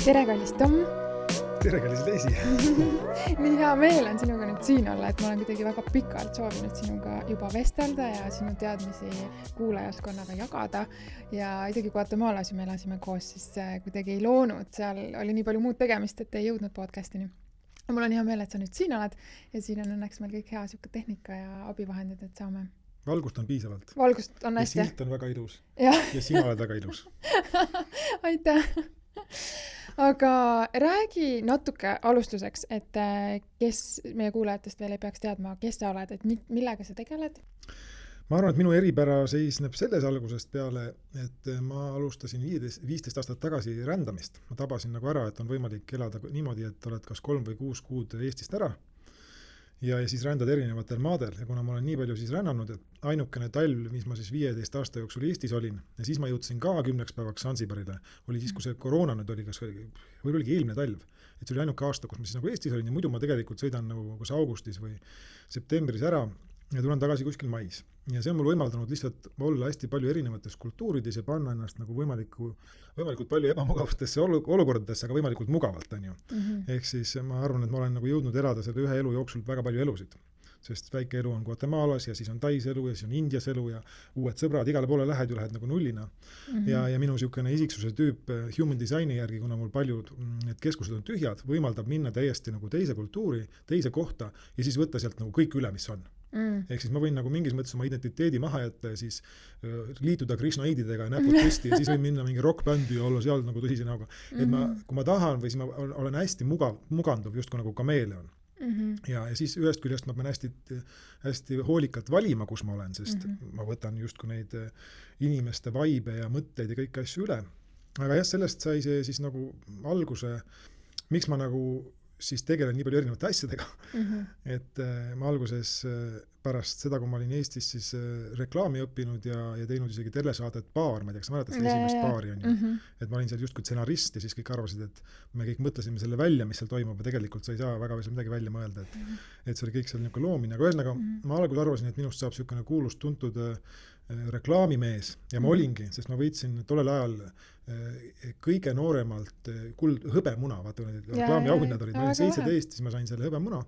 Tere, kallis Tom! Tere, kallis Leisi! Nii hea meel on sinuga nüüd siin olla, et ma olen kuidagi väga pikalt soovinud sinuga juba vestelda ja sinu teadmisi kuulajaskonnaga jagada. Ja isegi Guatemala's me elasime koos, siis kuidagi ei loonud. Seal oli nii palju muud tegemist, et ei jõudnud podcastini. Mul on hea meel, et sa nüüd siin oled ja siin on õnneks meil kõik hea siuke tehnika ja abivahendid, et saame. Valgust on piisavalt. Valgust on hästi. Ja silt on väga ilus. Ja sina oled väga ilus. Aitäh! Aga räägi natuke alustuseks, et kes meie kuulajatest veel ei peaks teadma, kes sa oled, et millega sa tegeled? Ma arvan, et minu eripära seisneb selles algusest peale, et ma alustasin 15 aastat tagasi rändamist. Ma tabasin nagu ära, et on võimalik elada niimoodi, et oled kas 3 või 6 kuud Eestist ära ja siis rändad erinevatel maadel. Ja kuna ma olen nii palju siis rännanud, et ainukene talv, mis ma siis 15 aasta jooksul Eestis olin, ja siis ma jõudsin ka 10 päevaks Sansibarile, oli siis, kui see koroona nüüd oli, või oligi eelmine talv. Et see oli ainuke aasta, kus ma siis nagu Eestis olin ja muidu ma tegelikult sõidan nagu kas augustis või septembris ära ja tulen tagasi kuskil mais. Ja see on mul võimaldanud lihtsalt olla hästi palju erinevates kultuurides ja panna ennast nagu võimalikult palju ebamugavustesse olukordadesse, aga võimalikult mugavalt on ju. Ehk siis ma arvan, et ma olen nagu jõudnud elada selle ühe elu jooksul väga palju elusid. Sest väike elu on Guatemalas ja siis on Tais elu ja siis on Indias elu ja uued sõbrad, igale poole lähed nagu nullina. Ja minu siukene isiksuse tüüp human designi järgi, kuna mul paljud need keskused on tühjad, võimaldab minna täiesti nagu teise kultuuri, teise kohta ja siis võtta sealt nagu kõik üle, mis on. Ehk siis ma võin nagu mingis mõttes oma identiteedi maha jätta ja siis liituda krishnaididega ja näpud püsti ja siis võin minna mingi rockbändi ja olla seal nagu tõsise näoga. Et kui ma tahan või siis ma olen hästi muganduv just kui nagu kameeleon. Ja siis ühest küljest ma pean hästi hoolikalt valima, kus ma olen, sest ma võtan justkui neid inimeste vaibe ja mõtteid ja kõiki asju üle. Aga jah, sellest sai see siis nagu alguse, miks ma nagu siis tegelen nii palju erinevate asjadega. Et ma alguses pärast seda, kui ma olin Eestis siis reklaami õppinud ja teinud isegi telesaadet Paar, ma ei tea, kas sa mäletad seda esimest Paari on ju. Et ma olin seal justkui stsenarist ja siis kõik arvasid, et me kõik mõtlesime selle välja, mis seal toimub ja tegelikult sa ei saa väga midagi välja mõelda, et see oli kõik seal niisugune loomine. Aga ühesõnaga, ma algul arvasin, et minust saab niisugune kuulust tuntud reklaamimees ja ma olingi, sest ma võitsin tollel ajal kõige nooremalt hõbemuna, vaata need reklaamiauhinnad olid, ma olin 17, siis ma sain selle hõbemuna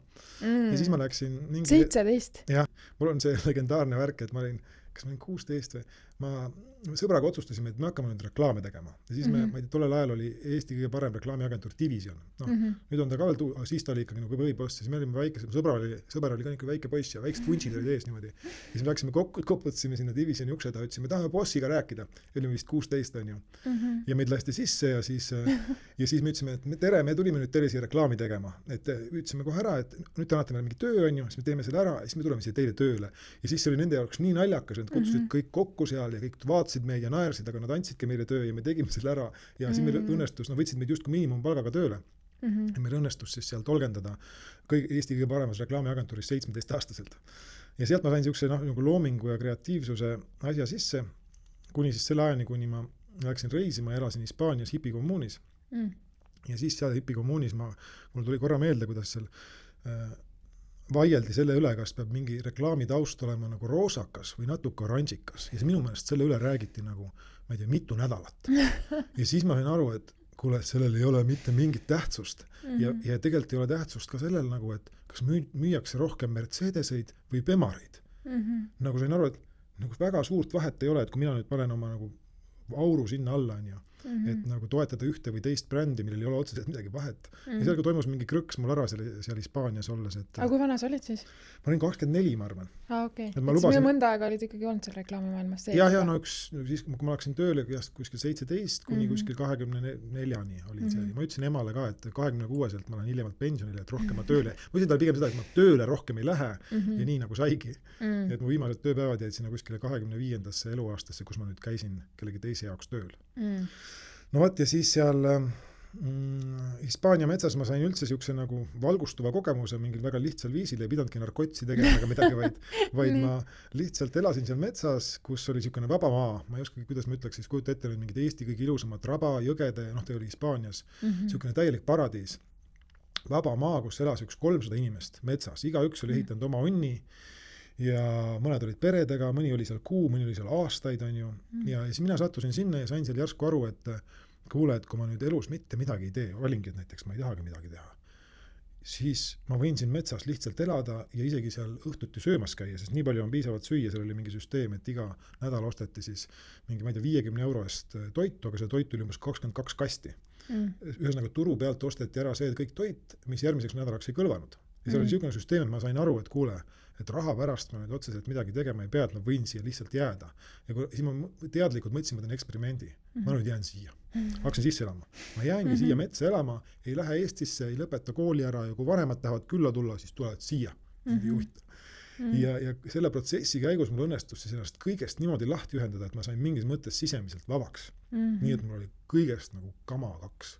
ja siis ma läksin 17? Jah, mul on see legendaarne värk, et ma olin 16 või ma sõbraga otsustasime, et me hakkame nüüd reklaame tegema. Ja siis ma ei tea, tollel ajal oli Eesti kõige parem reklaamiagentuur Division. Nüüd on ta ka veel, siis ta oli ikkagi nagu võiboss, siis me olime väike, sõber oli ka niisugune väike poiss ja väiksed vuntsid olid ees niimoodi. Ja siis me läksime koputasime sinna Divisioni ukseda, ütlesime, tahame bossiga rääkida. Olime vist 16 on ju. Ja meid lasti sisse ja siis me ütlesime, et tere, me tulime nüüd teile siia reklaami tegema. Et ütlesime kohe ära, et nüüd te annate meile mingi töö on ju, siis me teeme selle ära ja siis me tuleme siia teile tööle. Ja siis see oli nende jaoks nii naljakas, et kutsusid kõik kokku seal ja kõik vaatasid meid ja naersid, aga nad andsidki meile töö ja me tegime selle ära ja siis meil õnnestus, võtsid meid justkui miinimumpalgaga tööle. Ja meil õnnestus siis seal tolgendada Eesti kõige paremas reklaamiagentuuris 17-aastaselt. Ja sealt ma sain niisuguse nagu loomingu ja kreatiivsuse asja sisse, kuni siis selle ajani, kuni ma läksin reisima ja elasin Hispaanias hipikommuunis. Ja siis seal hipikommuunis mul tuli korra meelde, kuidas seal vaieldi selle üle, kas peab mingi reklaami taust olema nagu roosakas või natuke oranžikas. Ja minu meelest selle üle räägiti nagu, ma ei tea, mitu nädalat. Ja siis ma sain aru, et kuule, sellel ei ole mitte mingit tähtsust. Ja tegelikult ei ole tähtsust ka sellel nagu, et kas müüakse rohkem Mercedeseid või Bemareid. Nagu sain aru, et nagu väga suurt vahet ei ole, et kui mina nüüd panen oma nagu auru sinna alla on ju, et nagu toetada ühte või teist brändi, millel ei ole otseselt midagi vahet. Ja seal toimus mingi krõks mul ära seal Hispaanias olles. Aga kui vana sa olid siis? Ma olin 24, ma arvan. Okei. Et minu mõnda aega olid ikkagi olnud seal reklaamimaailmas sees. Ja siis kui ma läksin tööle kuskil 17 kuni kuskil 24-ni olin see. Ma ütlesin emale ka, et 26-selt ma lähen hiljemalt pensionile, et rohkem ma tööle. Ma ütlesin talle pigem seda, et ma tööle rohkem ei lähe ja nii nagu saigi. Et mu viimased tööpäevad jäid sinna kuskile 25. eluaastasse, kus ma nüüd käisin kellegi teise jaoks tööl. No võt, ja siis seal Hispaania metsas ma sain üldse siukse nagu valgustuva kogemuse mingil väga lihtsal viisil, ei pidanudki narkotsi tegema ega midagi, vaid ma lihtsalt elasin seal metsas, kus oli siukene vaba maa. Ma ei oska, kuidas ma ütleks, siis kujuta ette mingid Eesti kõige ilusamad raba, jõgede, ta oli Hispaanias, siukene täielik paradiis. Vaba maa, kus elas üks 300 inimest metsas. Igaüks oli ehitanud oma onni ja mõned olid peredega, mõni oli seal kuu, mõni oli seal aastaid on ju. Ja siis mina sattusin sinna ja sain seal järsku aru, et kuule, et kui ma nüüd elus mitte midagi ei tee, valingi, et näiteks ma ei tahagi midagi teha, siis ma võin siin metsas lihtsalt elada ja isegi seal õhtuti söömas käia, sest nii palju on piisavalt süüa, seal oli mingi süsteem, et iga nädal osteti siis mingi, ma ei tea, 50 euro eest toitu, aga see toit oli umbes 22 kasti. Ühesõnaga turu pealt osteti ära see kõik toit, mis järgmiseks nädalaks ei kõlvanud. Ja see oli niisugune süsteem, et ma sain aru, et kuule, et raha pärast ma nüüd otseselt midagi tegema ei pea, et ma võin siia lihtsalt jääda. Ja siis ma teadlikult mõtlesin, ma teen eksperimendi. Ma nüüd jään siia. Hakkasin sisse elama. Ma jäängi siia metsa elama, ei lähe Eestisse, ei lõpeta kooli ära ja kui vanemad tahavad külla tulla, siis tulevad siia. Ja selle protsessi käigus mul õnnestus siis ennast kõigest niimoodi lahti ühendada, et ma sain mingis mõttes sisemiselt vabaks. Nii et mul oli kõigest nagu kama kaks.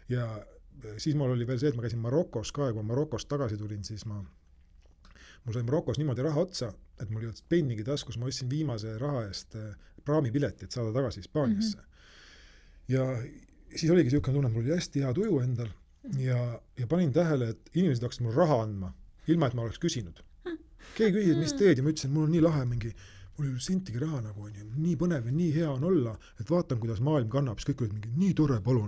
Ja siis mul oli veel see, et ma käisin Marokos ka ja kui Marokost tagasi tulin, siis mul sai Marokos niimoodi raha otsa, et mul ei olnud pennigi taskus, ma ostsin viimase raha eest praamipileti, et saada tagasi Hispaaniasse. Ja siis oligi niisugune tunne, et mul oli hästi hea tuju endal ja panin tähele, et inimesed hakkasid mul raha andma, ilma et ma oleks küsinud. Keegi küsis, et mis teed ja ma ütlesin, et mul on nii lahe mingi, mul ei ole sentigi raha nagu, nii põnev ja nii hea on olla, et vaatan, kuidas maailm kannab, siis kõik olid mingi, nii tore, palun,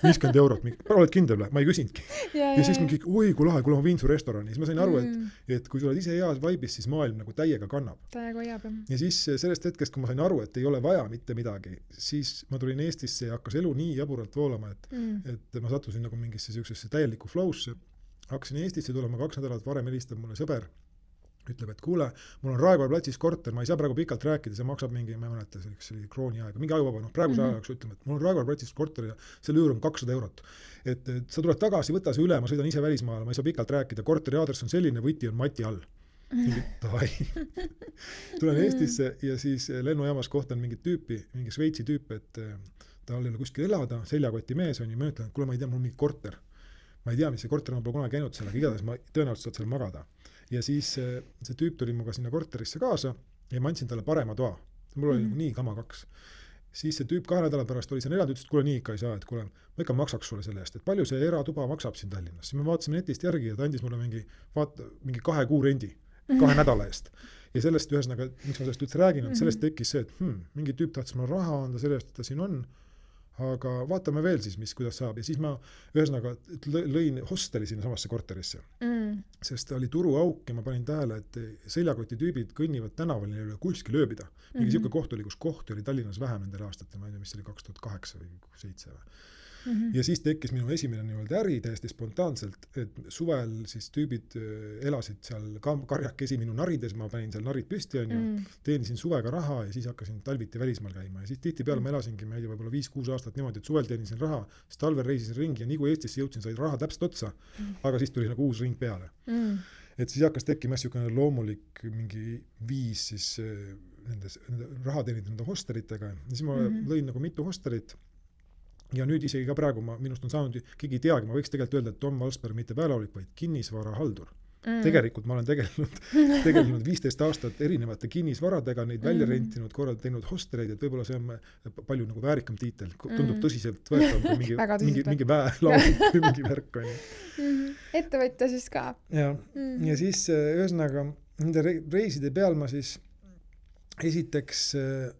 50 eurot, oled kindel, ma ei küsinudki. Ja siis mingi, oi, kui lahe, kui ma viin su restorani, siis ma sain aru, et kui sa oled ise heas vaibis, siis maailm nagu täiega kannab. Täiega hoiab, jah. Ja siis sellest hetkest, kui ma sain aru, et ei ole vaja mitte midagi, siis ma tulin Eestisse ja hakkas elu nii jaburalt voolama, et ma sattusin nagu mingisse täielikku flowsse. Hakkasin Eestisse tulema 2 nädalat varem helistab mulle sõber, ütleb, et kuule, mul on Raekoja platsis korter, ma ei saa praegu pikalt rääkida, see maksab mingi, ma ei mäleta, see oli krooni aega, mingi ajuvaba, praeguse ajaks ütleme, et mul on Raekoja platsis korter ja selle üür on 200 eurot. Et sa tuled tagasi, võta see üle, ma sõidan ise välismaale, ma ei saa pikalt rääkida, korteri aadress on selline, võti on Mati all. Tulen Eestisse ja siis lennujaamas kohtan mingit tüüpi, mingi Šveitsi tüüp, et ta ei ole kuskil elada, seljakoti mees on ja ma ütlen, et kuule, ma ei tea, mul on mingi korter. Ma ei tea, mis see korter on, pole kunagi käinud seal, aga igatahes ma tõenäoliselt saad seal magada. Ja siis see tüüp tuli muga sinna korterisse kaasa ja ma andsin talle parema toa. Mul oli nii kama kaks. Siis see tüüp 2 nädala pärast oli seal elanud, ütles, et kuule nii ikka ei saa, et kuule, ma ikka maksaks sulle selle eest, et palju see eratuba maksab siin Tallinnas. Siis me vaatasime netist järgi ja ta andis mulle mingi 2 kuu rendi 2 nädala eest. Ja sellest ühesõnaga, miks ma sellest üldse räägin, et sellest tekkis see, et mingi tüüp tahtis mulle raha anda selle eest, et ta siin on, aga vaatame veel siis, kuidas saab. Ja siis ma ühesõnaga lõin hosteli sinna samasse korterisse. Sest oli turuauk ja ma panin tähele, et seljakoti tüübid kõnnivad tänaval, neil ei ole kuskil ööbida. Mingi siuke koht oli, kus kohti oli Tallinnas vähem nendel aastatel, ma ei tea, mis oli 2008 või 2007. Ja siis tekkis minu esimene nii-öelda äri täiesti spontaanselt, et suvel siis tüübid elasid seal karjakesi minu narides, ma panin seal narid püsti teenisin suvega raha ja siis hakkasin talviti välismaal käima ja siis tihtipeale ma elasingi, ma ei tea, võib-olla 5-6 aastat niimoodi, et suvel teenisin raha, siis talvel reisisin ringi ja nii kui Eestisse jõudsin, sai raha täpselt otsa, aga siis tuli nagu uus ring peale. Et siis hakkas tekkima niisugune loomulik mingi viis siis nende raha teenida nende hosteritega ja siis ma lõin nagu mitu hosterit. Ja nüüd isegi ka praegu minust on saanud, keegi ei teagi, ma võiks tegelikult öelda, et Tom Valsberg mitte päälaulik, vaid kinnisvara haldur. Tegelikult ma olen tegelenud 15 aastat erinevate kinnisvaradega, neid välja rentinud, korralt teinud hostereid, et võib-olla see on palju nagu väärikam tiitel, tundub tõsiselt võetav kui mingi väelaulik või mingi värk on. Ettevõtja siis ka. Ja siis ühesõnaga nende reiside peal ma siis esiteks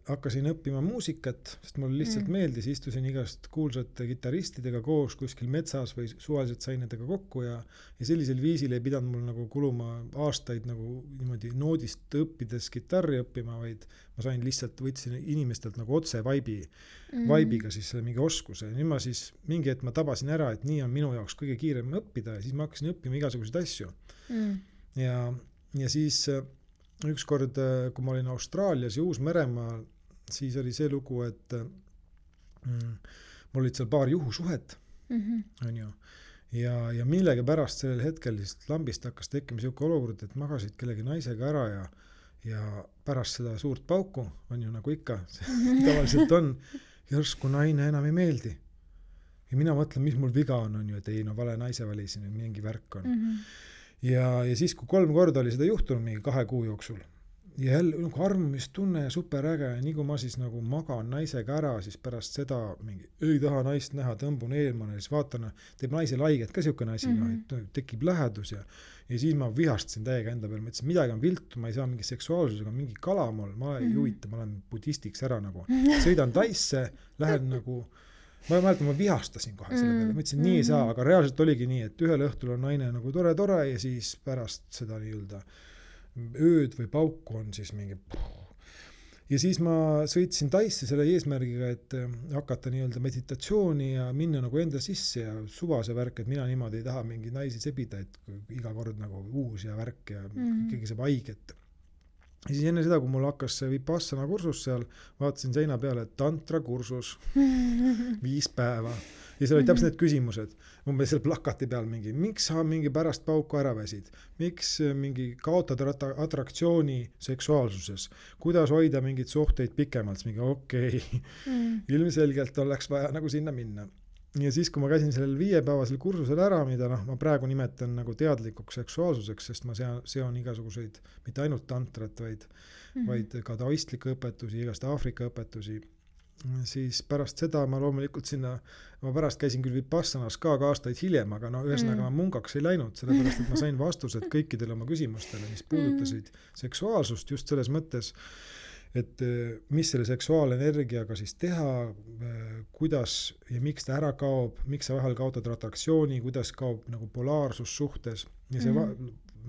hakkasin õppima muusikat, sest mulle lihtsalt meeldis, istusin igast kuulsate kitaristidega koos kuskil metsas või suvaliselt sain nendega kokku ja sellisel viisil ei pidanud mul nagu kuluma aastaid nagu niimoodi noodist õppides kitarri õppima, vaid ma sain lihtsalt, võtsin inimestelt nagu otse vaibiga siis selle mingi oskuse. Nüüd ma siis mingi hetk ma tabasin ära, et nii on minu jaoks kõige kiirem õppida ja siis ma hakkasin õppima igasuguseid asju. Ja siis ükskord, kui ma olin Austraalias ja Uus-Meremaal, siis oli see lugu, et mul olid seal paar juhusuhet, on ju, ja millegi pärast sellel hetkel lihtsalt lambist hakkas tekkima siuke olukord, et magasid kellegi naisega ära ja pärast seda suurt pauku, on ju nagu ikka, tavaliselt on, järsku naine enam ei meeldi. Ja mina mõtlen, mis mul viga on ju, et ei, no vale naise valisin, mingi värk on. Ja siis, kui 3 korda oli seda juhtunud mingi 2 kuu jooksul ja jälle nagu armumistunne ja superäge ja nii kui ma siis nagu magan naisega ära, siis pärast seda mingi ei taha naist näha, tõmbun eelmane ja siis vaatan, teeb naise laiget ka siukene asi, tekib lähedus ja siis ma vihastasin täiega enda peale, mõtlesin, midagi on viltu, ma ei saa mingi seksuaalsusega, mingi kalamol, ma ei huvita, ma olen budistiks ära nagu, sõidan Taisse, lähen nagu ma mäletan, ma vihastasin kohe selle peale, ma ütlesin, nii ei saa, aga reaalselt oligi nii, et ühel õhtul on naine nagu tore ja siis pärast seda nii-öelda ööd või pauku on siis mingi ja siis ma sõitsin Taisse selle eesmärgiga, et hakata nii-öelda meditatsiooni ja minna nagu enda sisse ja suvase värk, et mina niimoodi ei taha mingi naisi sebida, et iga kord nagu uus ja värk ja keegi saab haiget. Ja siis enne seda, kui mul hakkas see Vipassana kursus seal, vaatasin seina peale, et tantra kursus 5 päeva. Ja seal oli täpselt need küsimused. Umbes seal plakati peal mingi, miks sa mingi pärast pauku ära väsid? Miks mingi kaotad atraktsiooni seksuaalsuses? Kuidas hoida mingid suhteid pikemalt? Mingi okei. Ilmselgelt oleks vaja nagu sinna minna. Ja siis, kui ma käisin sellel 5-päevasel kursusel ära, mida ma praegu nimetan nagu teadlikuks seksuaalsuseks, sest ma seon igasuguseid, mitte ainult tantrat, vaid ka taoistlikke õpetusi, igast Aafrika õpetusi, siis pärast seda ma loomulikult sinna, ma pärast käisin küll Vipassanas ka aastaid hiljem, aga ühesõnaga ma munkaks ei läinud, sellepärast, et ma sain vastused kõikidele oma küsimustele, mis puudutasid seksuaalsust just selles mõttes, et mis selle seksuaalenergiaga siis teha, kuidas ja miks ta ära kaob, miks sa vahel kaotad atraktsiooni, kuidas kaob nagu polaarsus suhtes ja see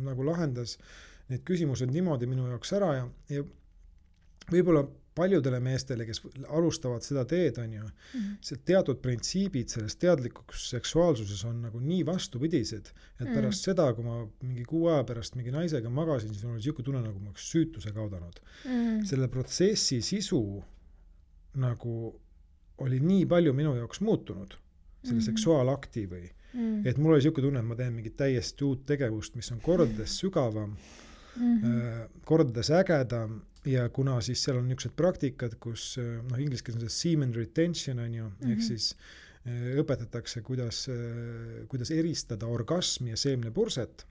nagu lahendas need küsimused niimoodi minu jaoks ära ja võib-olla paljudele meestele, kes alustavad seda teed, on ju, see teatud printsiibid selles teadlikuks seksuaalsuses on nagu nii vastupidised, et pärast seda, kui ma mingi 6 aja pärast mingi naisega magasin, siis oli siuke tunne, nagu ma oleks süütuse kaudanud. Selle protsessi sisu nagu oli nii palju minu jaoks muutunud, selle seksuaalakti või, et mul oli siuke tunne, et ma teen mingit täiesti uut tegevust, mis on kordades sügavam, kordades ägedam, ja kuna siis seal on niisugused praktikad, kus inglise keeles on see semen retention on ju, ehk siis õpetatakse, kuidas eristada orgasmi ja seemnepurset,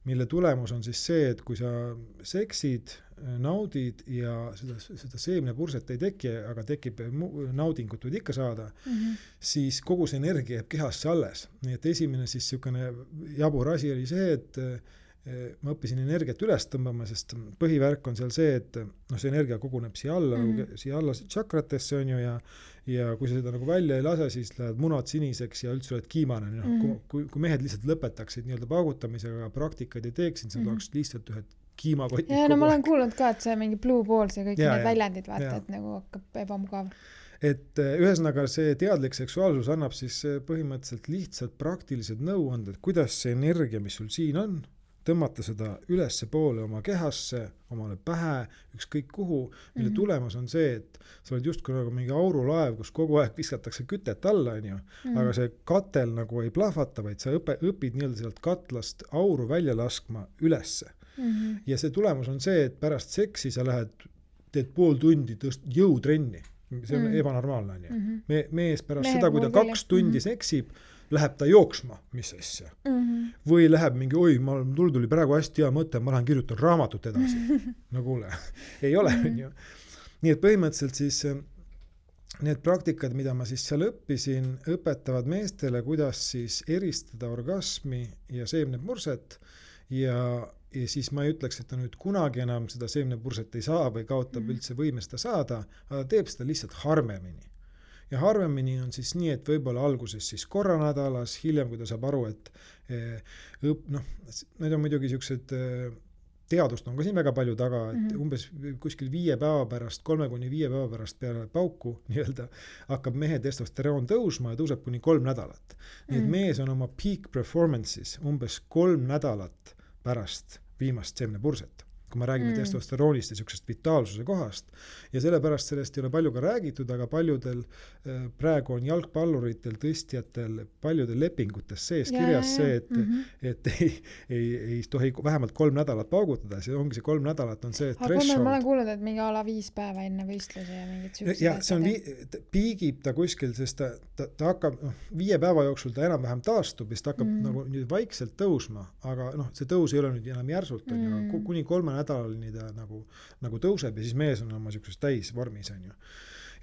mille tulemus on siis see, et kui sa seksid, naudid ja seda seemnepurset ei teki, aga tekib naudingut võid ikka saada, siis kogu see energia jääb kehasse alles. Nii et esimene siis niisugune jabur asi oli see, et ma õppisin energiat üles tõmbama, sest põhivärk on seal see, et see energia koguneb siia alla tšakratesse on ju ja kui sa seda nagu välja ei lase, siis lähed munad siniseks ja üldse oled kiimane. Kui mehed lihtsalt lõpetaksid nii-öelda paugutamisega praktikaid ei teeksid, siis nad oleks lihtsalt ühed kiimakotid. Ja ma olen kuulnud ka, et see mingi blue balls ja kõik need väljendid vaata, et nagu hakkab ebamugav. Et ühesõnaga see teadlik seksuaalsus annab siis põhimõtteliselt lihtsalt praktilised nõuanded, kuidas see energia, mis sul siin on, tõmmata seda ülesse poole oma kehasse, omale pähe, ükskõik kuhu, mille tulemus on see, et sa oled justkui nagu mingi aurulaev, kus kogu aeg viskatakse kütet alla, on ju, aga see katel nagu ei plahvata, vaid sa õpid nii-öelda sealt katlast auru välja laskma ülesse. Ja see tulemus on see, et pärast seksi sa teed pool tundi jõutrenni. See on ebanormaalne, on ju. Mees pärast seda, kui ta 2 tundi seksib, läheb ta jooksma, mis asja. Või läheb mingi, mul tuli praegu hästi hea mõte, ma lähen kirjutan raamatut edasi. No kuule, ei ole, on ju. Nii et põhimõtteliselt siis need praktikad, mida ma siis seal õppisin, õpetavad meestele, kuidas siis eristada orgasmi ja seemnepurset ja siis ma ei ütleks, et ta nüüd kunagi enam seda seemnepurset ei saa või kaotab üldse võime seda saada, aga ta teeb seda lihtsalt harvemini. Ja harvemini on siis nii, et võib-olla alguses siis korra nädalas, hiljem, kui ta saab aru, et need on muidugi siuksed, teadust on ka siin väga palju taga, et umbes kuskil 5 päeva pärast, 3-5 päeva pärast peale pauku nii-öelda, hakkab mehe testosteroon tõusma ja tõuseb kuni 3 nädalat. Nii et mees on oma peak performance'is umbes 3 nädalat pärast viimast seemnepurset, kui me räägime testosteroonist ja siuksest vitaalsuse kohast. Ja sellepärast sellest ei ole palju ka räägitud, aga paljudel praegu on jalgpalluritel, tõstjatel, paljudel lepingutes sees kirjas see, et ei tohi vähemalt 3 nädalat paugutada. See ongi see 3 nädalat on see threshold. Ma olen kuulnud, et mingi ala 5 päeva enne võistluse ja mingid süüksed. Ja see on piigib ta kuskil, sest ta hakkab 5 päeva jooksul ta enam-vähem taastub ja ta hakkab nagu nüüd vaikselt tõusma, aga see tõus ei ole nüüd enam järsult, kuni 3 nädalani ta nagu tõuseb ja siis mees on oma siukses täisvormis, on ju.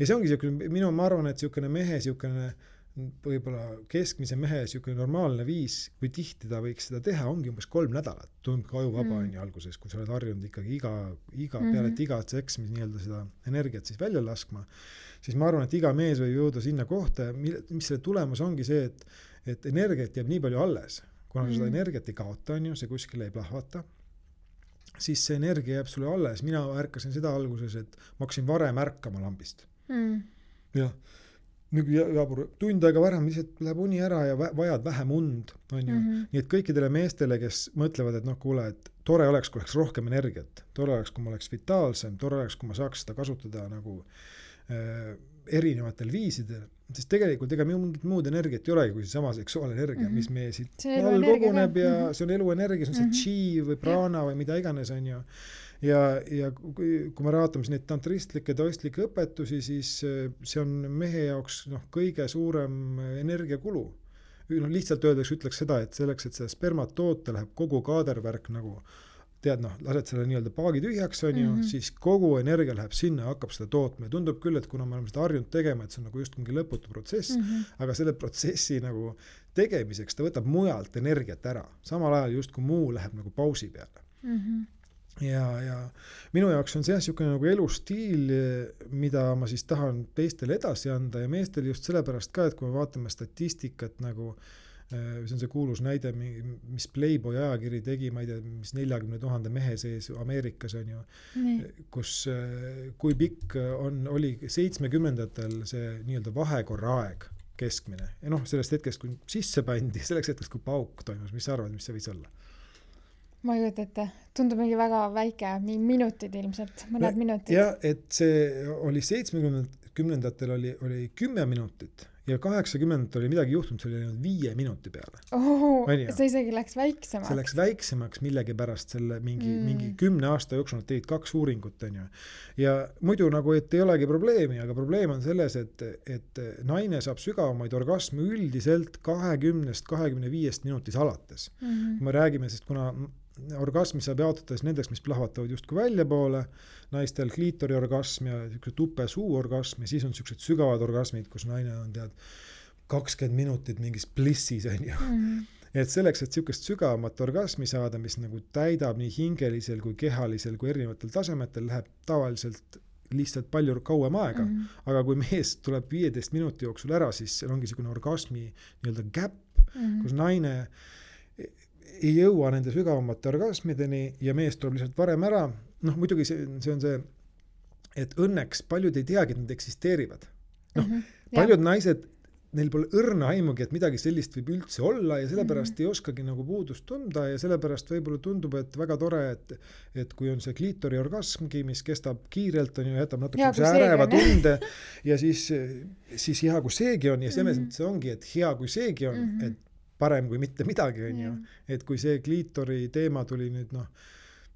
Ja see ongi siukene, ma arvan, et siukene mehe siukene võib-olla keskmise mehe siuke normaalne viis, kui tihti ta võiks seda teha, ongi umbes 3 nädalat. Tundub ka ajuvaba on ju alguses, kui sa oled harjunud ikkagi peale igat seksmis nii-öelda seda energiat siis välja laskma, siis ma arvan, et iga mees võib jõuda sinna kohta, mis selle tulemus ongi see, et energiat jääb nii palju alles. Kuna seda energiat ei kaota, on ju, see kuskile ei plahvata, siis see energia jääb sulle alles. Mina ärkasin seda alguses, et ma hakkasin varem ärkama lambist. Ja jabur, tund aega varem lihtsalt läheb uni ära ja vajad vähem und, on ju. Nii et kõikidele meestele, kes mõtlevad, et noh, kuule, et tore oleks, kui oleks rohkem energiat, tore oleks, kui ma oleks vitaalsem, tore oleks, kui ma saaks seda kasutada nagu erinevatel viisidel, sest tegelikult ega mingit muud energiat ei olegi kui see sama seksuaalenergia, mis meie siit all koguneb ja see on eluenergia, see on see chi või prana või mida iganes on ju. Ja kui me vaatame neid tantristlikke, taoistlikke õpetusi, siis see on mehe jaoks kõige suurem energiakulu. Lihtsalt ütleks seda, et selleks, et seda spermat toota, läheb kogu kaadervärk nagu tead, lased selle nii-öelda paagi tühjaks, on ju, siis kogu energia läheb sinna ja hakkab seda tootma. Ja tundub küll, et kuna me oleme seda harjunud tegema, et see on nagu just mingi lõputu protsess, aga selle protsessi nagu tegemiseks ta võtab mujalt energiat ära. Samal ajal just kui muu läheb nagu pausi peale. Ja minu jaoks on see niisugune nagu elustiil, mida ma siis tahan teistele edasi anda ja meestel just sellepärast ka, et kui me vaatame statistikat nagu see on see kuulus näide, mis Playboy ajakiri tegi, ma ei tea, mis 40 000 mehe sees Ameerikas on ju, kus kui pikk oli 70-ndatel see nii-öelda vahekorra aeg keskmine. Ja sellest hetkest, kui sisse pandi, selleks hetkest, kui pauk toimus, mis sa arvad, mis see võis olla? Ma ei juurde ette. Tundub mingi väga väike, minutid ilmselt, mõned minutid. Ja, et see oli 70-ndatel oli 10 minutit. Ja 80 oli midagi juhtunud, see oli 5 minuti peale. See isegi läks väiksemaks. See läks väiksemaks millegi pärast selle mingi 10 aasta jooksul nad tegid 2 uuringut. On ju. Ja muidu nagu, et ei olegi probleemi, aga probleem on selles, et naine saab sügavamaid orgasme üldiselt 20-25 minutis alates. Kui me räägime, sest kuna orgasmi saab jaotada nendeks, mis plahvatavad justkui välja poole, naistel kliitori orgasm ja tupe suu orgasm ja siis on sellised sügavad orgasmid, kus naine on 20 minutit mingis blissis on ju. Et selleks, et sellisest sügavamat orgasmi saada, mis nagu täidab nii hingelisel kui kehalisel kui erinevatel tasemetel, läheb tavaliselt lihtsalt palju kauem aega. Aga kui mees tuleb 15 minuti jooksul ära, siis seal ongi selline orgasmi nii-öelda gap, kus naine ei jõua nende sügavamate orgasmideni ja mees tuleb lihtsalt varem ära. Muidugi see on see, et õnneks paljud ei teagi, et nad eksisteerivad. Paljud naised, neil pole õrna aimugi, et midagi sellist võib üldse olla ja sellepärast ei oskagi nagu puudust tunda ja sellepärast võib-olla tundub, et väga tore, et kui on see kliitori orgasmgi, mis kestab kiirelt, on ju, jätab natuke äreva tunde ja siis hea, kui seegi on ja see ongi, et hea, kui seegi on, et parem kui mitte midagi on ju, et kui see kliitori teema tuli nüüd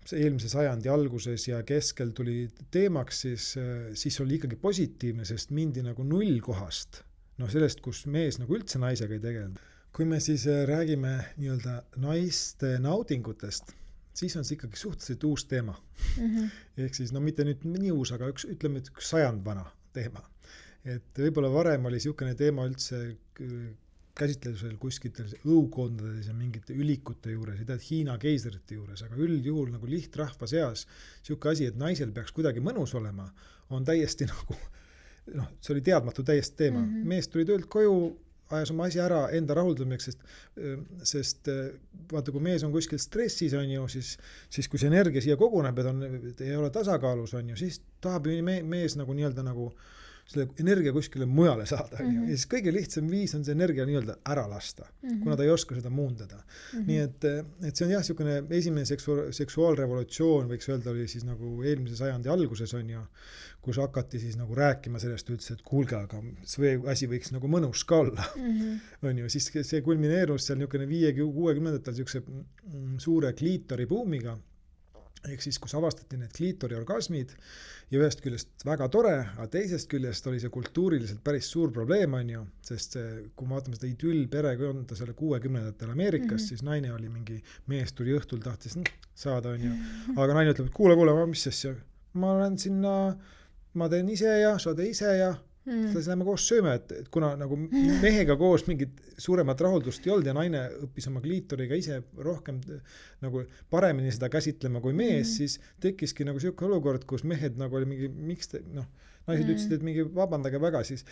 see eelmise sajandi alguses ja keskel tuli teemaks, siis oli ikkagi positiivne, sest mindi nagu nullkohast, sellest, kus mees nagu üldse naisega ei tegelenud. Kui me siis räägime nii-öelda naiste naudingutest, siis on see ikkagi suhteliselt uus teema. Ehk siis, mitte nüüd nii uus, aga ütleme, et 1 sajand vana teema. Et võib-olla varem oli niisugune teema üldse käsitlusel kuskitel õukondades ja mingite ülikute juures, ei tea, Hiina keisrite juures, aga üldjuhul nagu lihtrahva seas niisugune asi, et naisel peaks kuidagi mõnus olema, on täiesti nagu, see oli teadmatu täiesti teema. Mees tuli töölt koju, ajas oma asi ära enda rahuldamiseks, sest vaata, kui mees on kuskil stressis, on ju, siis kui see energia siia koguneb, et ei ole tasakaalus, on ju, siis tahab mees nagu nii-öelda nagu selle energia kuskile mujale saada. Ja siis kõige lihtsam viis on see energia nii-öelda ära lasta, kuna ta ei oska seda muundada. Nii et see on jah, niisugune esimene seksuaalrevolutsioon, võiks öelda, oli siis nagu eelmise sajandi alguses on ju, kus hakati siis nagu rääkima sellest üldse, et kuulge, aga see asi võiks nagu mõnus ka olla. On ju, siis see kulmineerus seal niisugune 50-60-ndatel niisuguse suure kliitori buumiga, ehk siis, kus avastati need kliitori orgasmid ja ühest küljest väga tore, aga teisest küljest oli see kultuuriliselt päris suur probleem, on ju, sest kui me vaatame seda idüllperekonda selle 60-ndatel Ameerikas, siis naine oli mingi, mees tuli õhtul, tahtis saada, on ju, aga naine ütleb, et kuule, mis asja, ma olen sinna, ma teen ise ja sa tee ise ja siis lähme koos sööme, et kuna nagu mehega koos mingit suuremat rahuldust ei olnud ja naine õppis oma kliitoriga ise rohkem nagu paremini seda käsitlema kui mees, siis tekkiski nagu selline olukord, kus mehed nagu oli mingi, miks te, naised ütlesid, et mingi vabandage väga, siis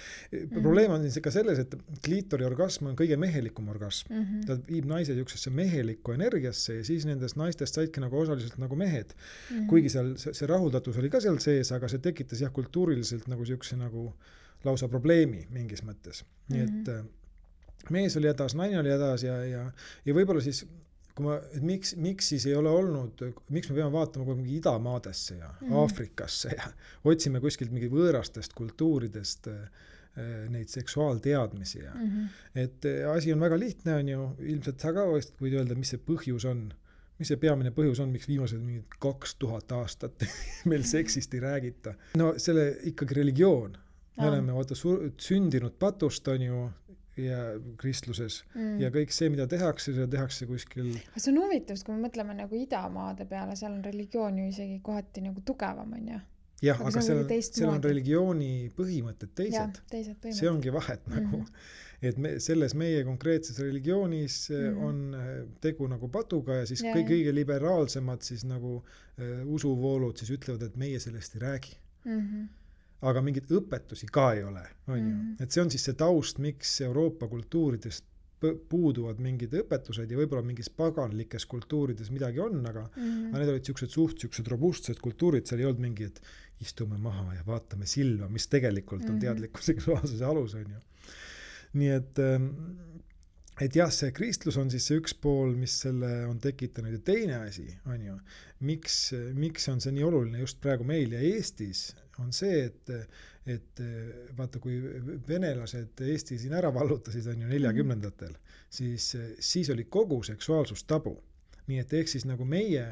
probleem on siis ka selles, et kliitori orgasm on kõige mehelikum orgasm. Ta viib naise niisugusesse mehelikku energiasse ja siis nendest naistest saidki nagu osaliselt nagu mehed. Kuigi seal see rahuldatus oli ka seal sees, aga see tekitas jah kultuuriliselt nagu niisuguse nagu lausa probleemi mingis mõttes. Nii et mees oli hädas, naine oli hädas ja võib-olla siis et miks siis ei ole olnud, miks me peame vaatama kogu mingi idamaadesse ja Aafrikasse ja otsime kuskilt mingi võõrastest kultuuridest neid seksuaalteadmisi ja et asi on väga lihtne, on ju, ilmselt sa ka võid öelda, mis see põhjus on, mis see peamine põhjus on, miks viimased mingid 2000 aastat meil seksist ei räägita. No selle ikkagi religioon, me oleme sündinud patust, on ju, ja kristluses ja kõik see, mida tehakse, seda tehakse kuskil. See on huvitav, kui me mõtleme nagu idamaade peale, seal on religioon ju isegi kohati nagu tugevam, on ju? Jah, aga seal on religiooni põhimõtted teised. See ongi vahet nagu, et selles meie konkreetses religioonis on tegu nagu patuga ja siis kõige liberaalsemad siis nagu usuvoolud siis ütlevad, et meie sellest ei räägi. Aga mingit õpetusi ka ei ole, on ju. Et see on siis see taust, miks Euroopa kultuuridest puuduvad mingid õpetused ja võib-olla mingis paganlikes kultuurides midagi on, aga need olid siuksed robustsed kultuurid, seal ei olnud mingi, et istume maha ja vaatame silma, mis tegelikult on teadliku seksuaalsuse alus, on ju. Nii et jah, see kristlus on siis see üks pool, mis selle on tekitanud ja teine asi, on ju, miks on see nii oluline just praegu meil ja Eestis, on see, et vaata, kui venelased Eesti siin ära vallutasid, on ju 40-ndatel, siis oli kogu seksuaalsus tabu. Nii et ehk siis nagu meie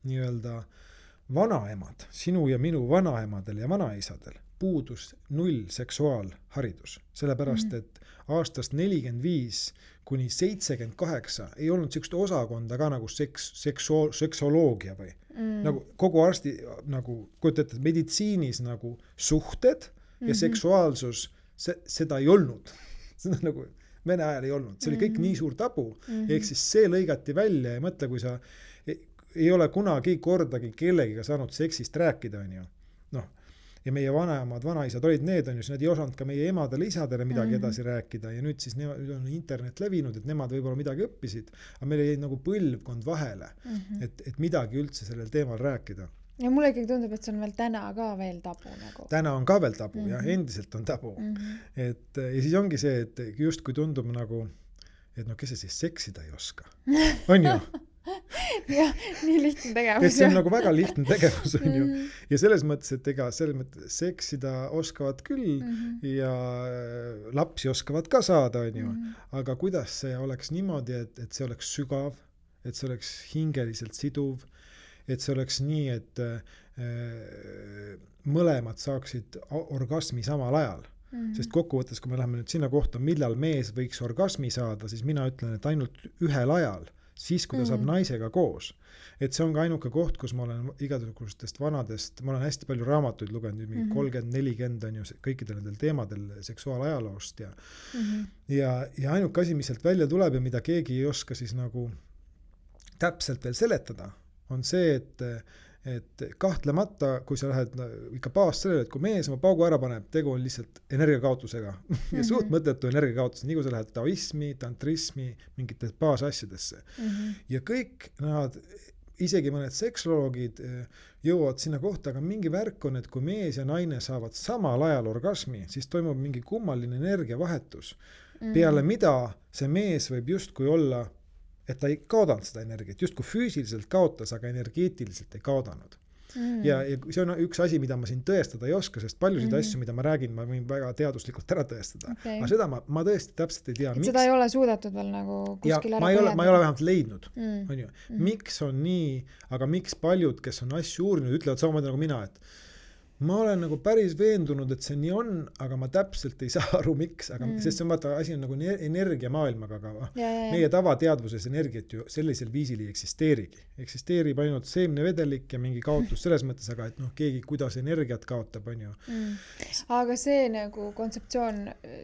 nii-öelda vanaemad, sinu ja minu vanaemadel ja vanaisadel puudus null seksuaalharidus. Sellepärast, et aastast 45 kuni 78 ei olnud sellist osakonda ka nagu seksoloogia või nagu kogu arsti nagu kujutate, meditsiinis nagu suhted ja seksuaalsus, seda ei olnud. Seda nagu Vene ajal ei olnud. See oli kõik nii suur tabu. Ehk siis see lõigati välja ja mõtle, kui sa ei ole kunagi kordagi kellegiga saanud seksist rääkida, on ju. Ja meie vanaemad, vanaisad olid need, on ju, nad ei osanud ka meie emadele, isadele midagi edasi rääkida ja nüüd siis nüüd on internet levinud, et nemad võib-olla midagi õppisid, aga meil jäi nagu põlvkond vahele, et midagi üldse sellel teemal rääkida. Ja mulle ikkagi tundub, et see on veel täna ka veel tabu nagu. Täna on ka veel tabu, jah, endiselt on tabu. Ja siis ongi see, et just kui tundub nagu, et kes see siis seksida ei oska, on ju? Jah, nii lihtne tegevus. Et see on nagu väga lihtne tegevus, on ju. Ja selles mõttes, et selles mõttes seksida oskavad küll ja lapsi oskavad ka saada, on ju. Aga kuidas see oleks niimoodi, et see oleks sügav, et see oleks hingeliselt siduv, et see oleks nii, et mõlemad saaksid orgasmi samal ajal. Sest kokkuvõttes, kui me läheme nüüd sinna kohta, millal mees võiks orgasmi saada, siis mina ütlen, et ainult ühel ajal, siis kui ta saab naisega koos. Et see on ka ainuke koht, kus ma olen igasugustest vanadest, ma olen hästi palju raamatuid lugenud, 30-40 on ju kõikidel nendel teemadel seksuaalajaloost ja ainuke asi, mis sealt välja tuleb ja mida keegi ei oska siis nagu täpselt veel seletada, on see, et kahtlemata, kui sa lähed ikka baas sellele, et kui mees oma paugu ära paneb, tegu on lihtsalt energiakaotusega ja suht mõttetu energiakaotus, nii kui sa lähed taoismi, tantrismi, mingite baasasjadesse. Ja kõik nad, isegi mõned seksoloogid jõuavad sinna kohta, aga mingi värk on, et kui mees ja naine saavad samal ajal orgasmi, siis toimub mingi kummaline energiavahetus. Peale mida see mees võib justkui olla, et ta ei kaodanud seda energiat, just kui füüsiliselt kaotas, aga energeetiliselt ei kaodanud. Ja see on üks asi, mida ma siin tõestada ei oska, sest paljusid asju, mida ma räägin, ma võin väga teaduslikult ära tõestada. Aga seda ma tõesti täpselt ei tea. Et seda ei ole suudetud veel nagu kuskil ära põhjendada. Ma ei ole vähemalt leidnud. On ju. Miks on nii, aga miks paljud, kes on asju uurinud, ütlevad samamoodi nagu mina, et ma olen nagu päris veendunud, et see nii on, aga ma täpselt ei saa aru, miks, aga sest see on vaata, asi on nagu energiamaailmaga, aga meie tavateadvuses energiat ju sellisel viisil ei eksisteerigi. Eksisteerib ainult seemnevedelik ja mingi kaotus selles mõttes, aga et noh, keegi kuidas energiat kaotab, on ju. Aga see nagu kontseptsioon,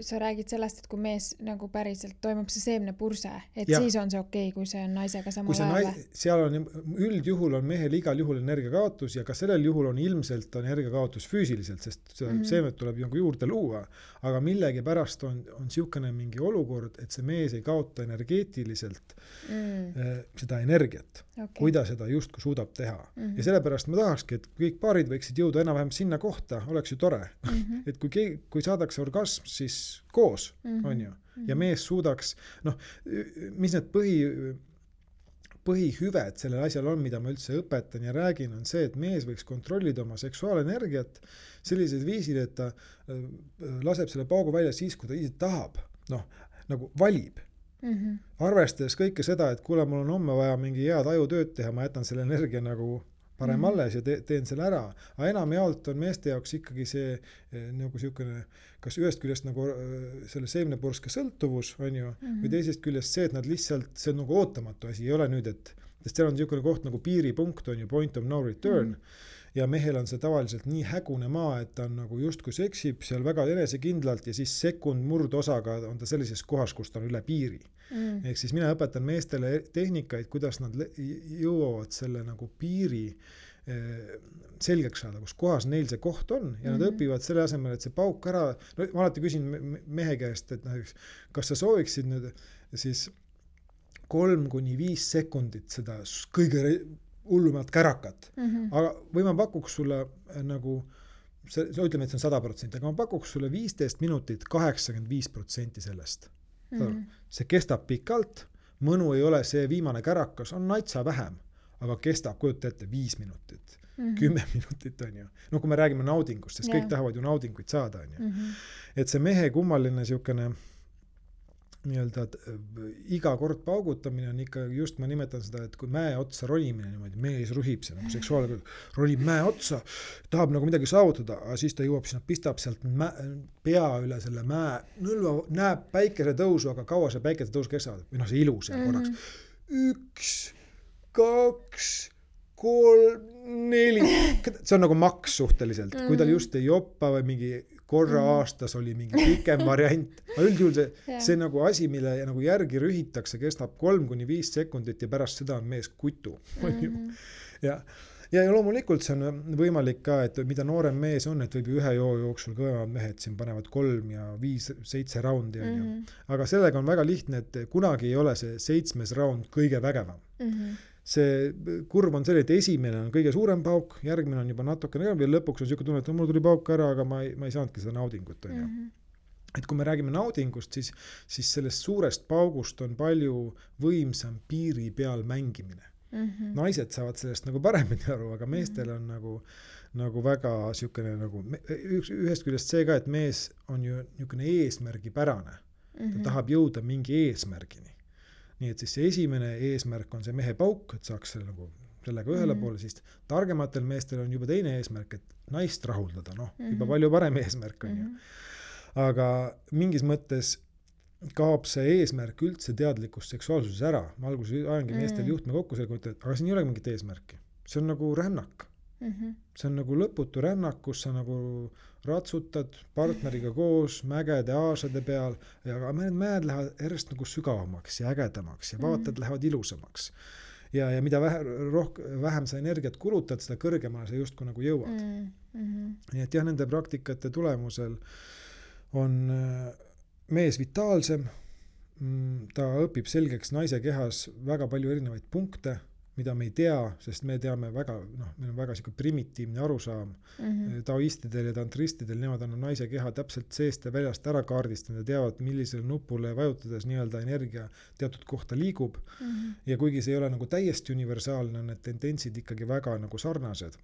sa räägid sellest, et kui mees nagu päriselt toimub see seemnepurse, et siis on see okei, kui see on naisega samal ajal. Seal on üldjuhul on mehel igal juhul energiakaotus ja ka sellel juhul on ilmselt energiakaotus füüsiliselt, sest seemet tuleb ju juurde luua, aga millegi pärast on siukene mingi olukord, et see mees ei kaota energeetiliselt seda energiat, kui ta seda justkui suudab teha. Ja sellepärast ma tahakski, et kõik paarid võiksid jõuda enam-vähem sinna kohta, oleks ju tore. Et kui saadakse orgasm, siis koos, on ju. Ja mees suudaks, noh, mis need põhihüved sellel asjal on, mida ma üldse õpetan ja räägin, on see, et mees võiks kontrollida oma seksuaalenergiat sellised viisil, et ta laseb selle paugu välja siis, kui ta ise tahab, noh, nagu valib. Arvestades kõike seda, et kuule, mul on homme vaja mingi head ajutööd teha, ma jätan selle energia nagu parem alles ja teen selle ära. Aga enamjaolt on meeste jaoks ikkagi see nagu siukene, kas ühest küljest nagu selle seemnepurske sõltuvus, on ju, või teisest küljest see, et nad lihtsalt, see on nagu ootamatu asi, ei ole nüüd, sest seal on siukene koht nagu piiripunkt, on ju, point of no return, ja mehel on see tavaliselt nii hägune maa, et ta on nagu justkui seksib seal väga enesekindlalt ja siis sekund murdosaga on ta sellises kohas, kus ta on üle piiri. Ehk siis mina õpetan meestele tehnikaid, kuidas nad jõuavad selle nagu piiri selgeks saada, kus kohas neil see koht on ja nad õpivad selle asemel, et see pauk ära, no ma alati küsin mehe käest, et näiteks, kas sa sooviksid nüüd siis 3-5 sekundit seda kõige hullumat kärakat, aga või ma pakuks sulle nagu, ütleme, et see on 100%, aga ma pakuks sulle 15 minutit 85% sellest. See kestab pikalt, mõnu ei ole see viimane kärakas, on natsa vähem, aga kestab, kujuta ette, 5 minutit, 10 minutit on ju. No kui me räägime naudingust, sest kõik tahavad ju naudinguid saada, on ju. Et see mehe kummaline siukene nii-öelda iga kord paugutamine on ikka, just ma nimetan seda, et kui mäe otsa ronimine niimoodi, mees ruhib see, nagu seksuaalne ronib mäe otsa, tahab nagu midagi saavutada, aga siis ta jõuab sinna, pistab sealt pea üle selle mäe, nõlva, näeb päikese tõusu, aga kaua see päikese tõus kestab, või noh, see ilus ja korraks. 1, 2, 3, 4, see on nagu maks suhteliselt, kui tal just ei joppa või mingi korra aastas oli mingi pikem variant. Üldjuhul see nagu asi, mille nagu järgi rühitakse, kestab 3-5 sekundit ja pärast seda on mees kutu. Ja loomulikult see on võimalik ka, et mida noorem mees on, et võib ühe joo jooksul kõvemad mehed siin panevad 3 ja 5, 7 raundi. Aga sellega on väga lihtne, et kunagi ei ole see 7. raund kõige vägevam. See kurv on selline, et esimene on kõige suurem pauk, järgmine on juba natukene ja lõpuks on siuke tunne, et mul tuli pauk ära, aga ma ei saanudki seda naudingut. Et kui me räägime naudingust, siis sellest suurest paugust on palju võimsam piiri peal mängimine. Naised saavad sellest nagu paremini aru, aga meestel on nagu väga siukene nagu, ühest küljest see ka, et mees on ju niisugune eesmärgipärane. Ta tahab jõuda mingi eesmärgini. Nii et siis see esimene eesmärk on see mehe pauk, et saaks sellega ühele poole, siis targematel meestel on juba teine eesmärk, et naist rahuldada, juba palju parem eesmärk on ju. Aga mingis mõttes kaob see eesmärk üldse teadlikus seksuaalsuses ära. Ma alguses ajangi meestel juhtme kokku selle kohta, aga siin ei ole mingit eesmärki. See on nagu rännak. See on nagu lõputu rännak, kus sa nagu ratsutad partneriga koos mägede aasade peal ja mäed lähevad järjest nagu sügavamaks ja ägedamaks ja vaatad lähevad ilusamaks. Ja mida vähem sa energiat kulutad, seda kõrgemale sa justkui nagu jõuad. Nii et jah, nende praktikate tulemusel on mees vitaalsem, ta õpib selgeks naise kehas väga palju erinevaid punkte, mida me ei tea, sest me teame väga, meil on väga siuke primitiivne arusaam. Taoistidel ja tantristidel, nemad on naise keha täpselt seest ja väljast ära kaardistanud ja teavad, millisele nupule vajutades nii-öelda energia teatud kohta liigub. Ja kuigi see ei ole nagu täiesti universaalne, on need tendentsid ikkagi väga nagu sarnased.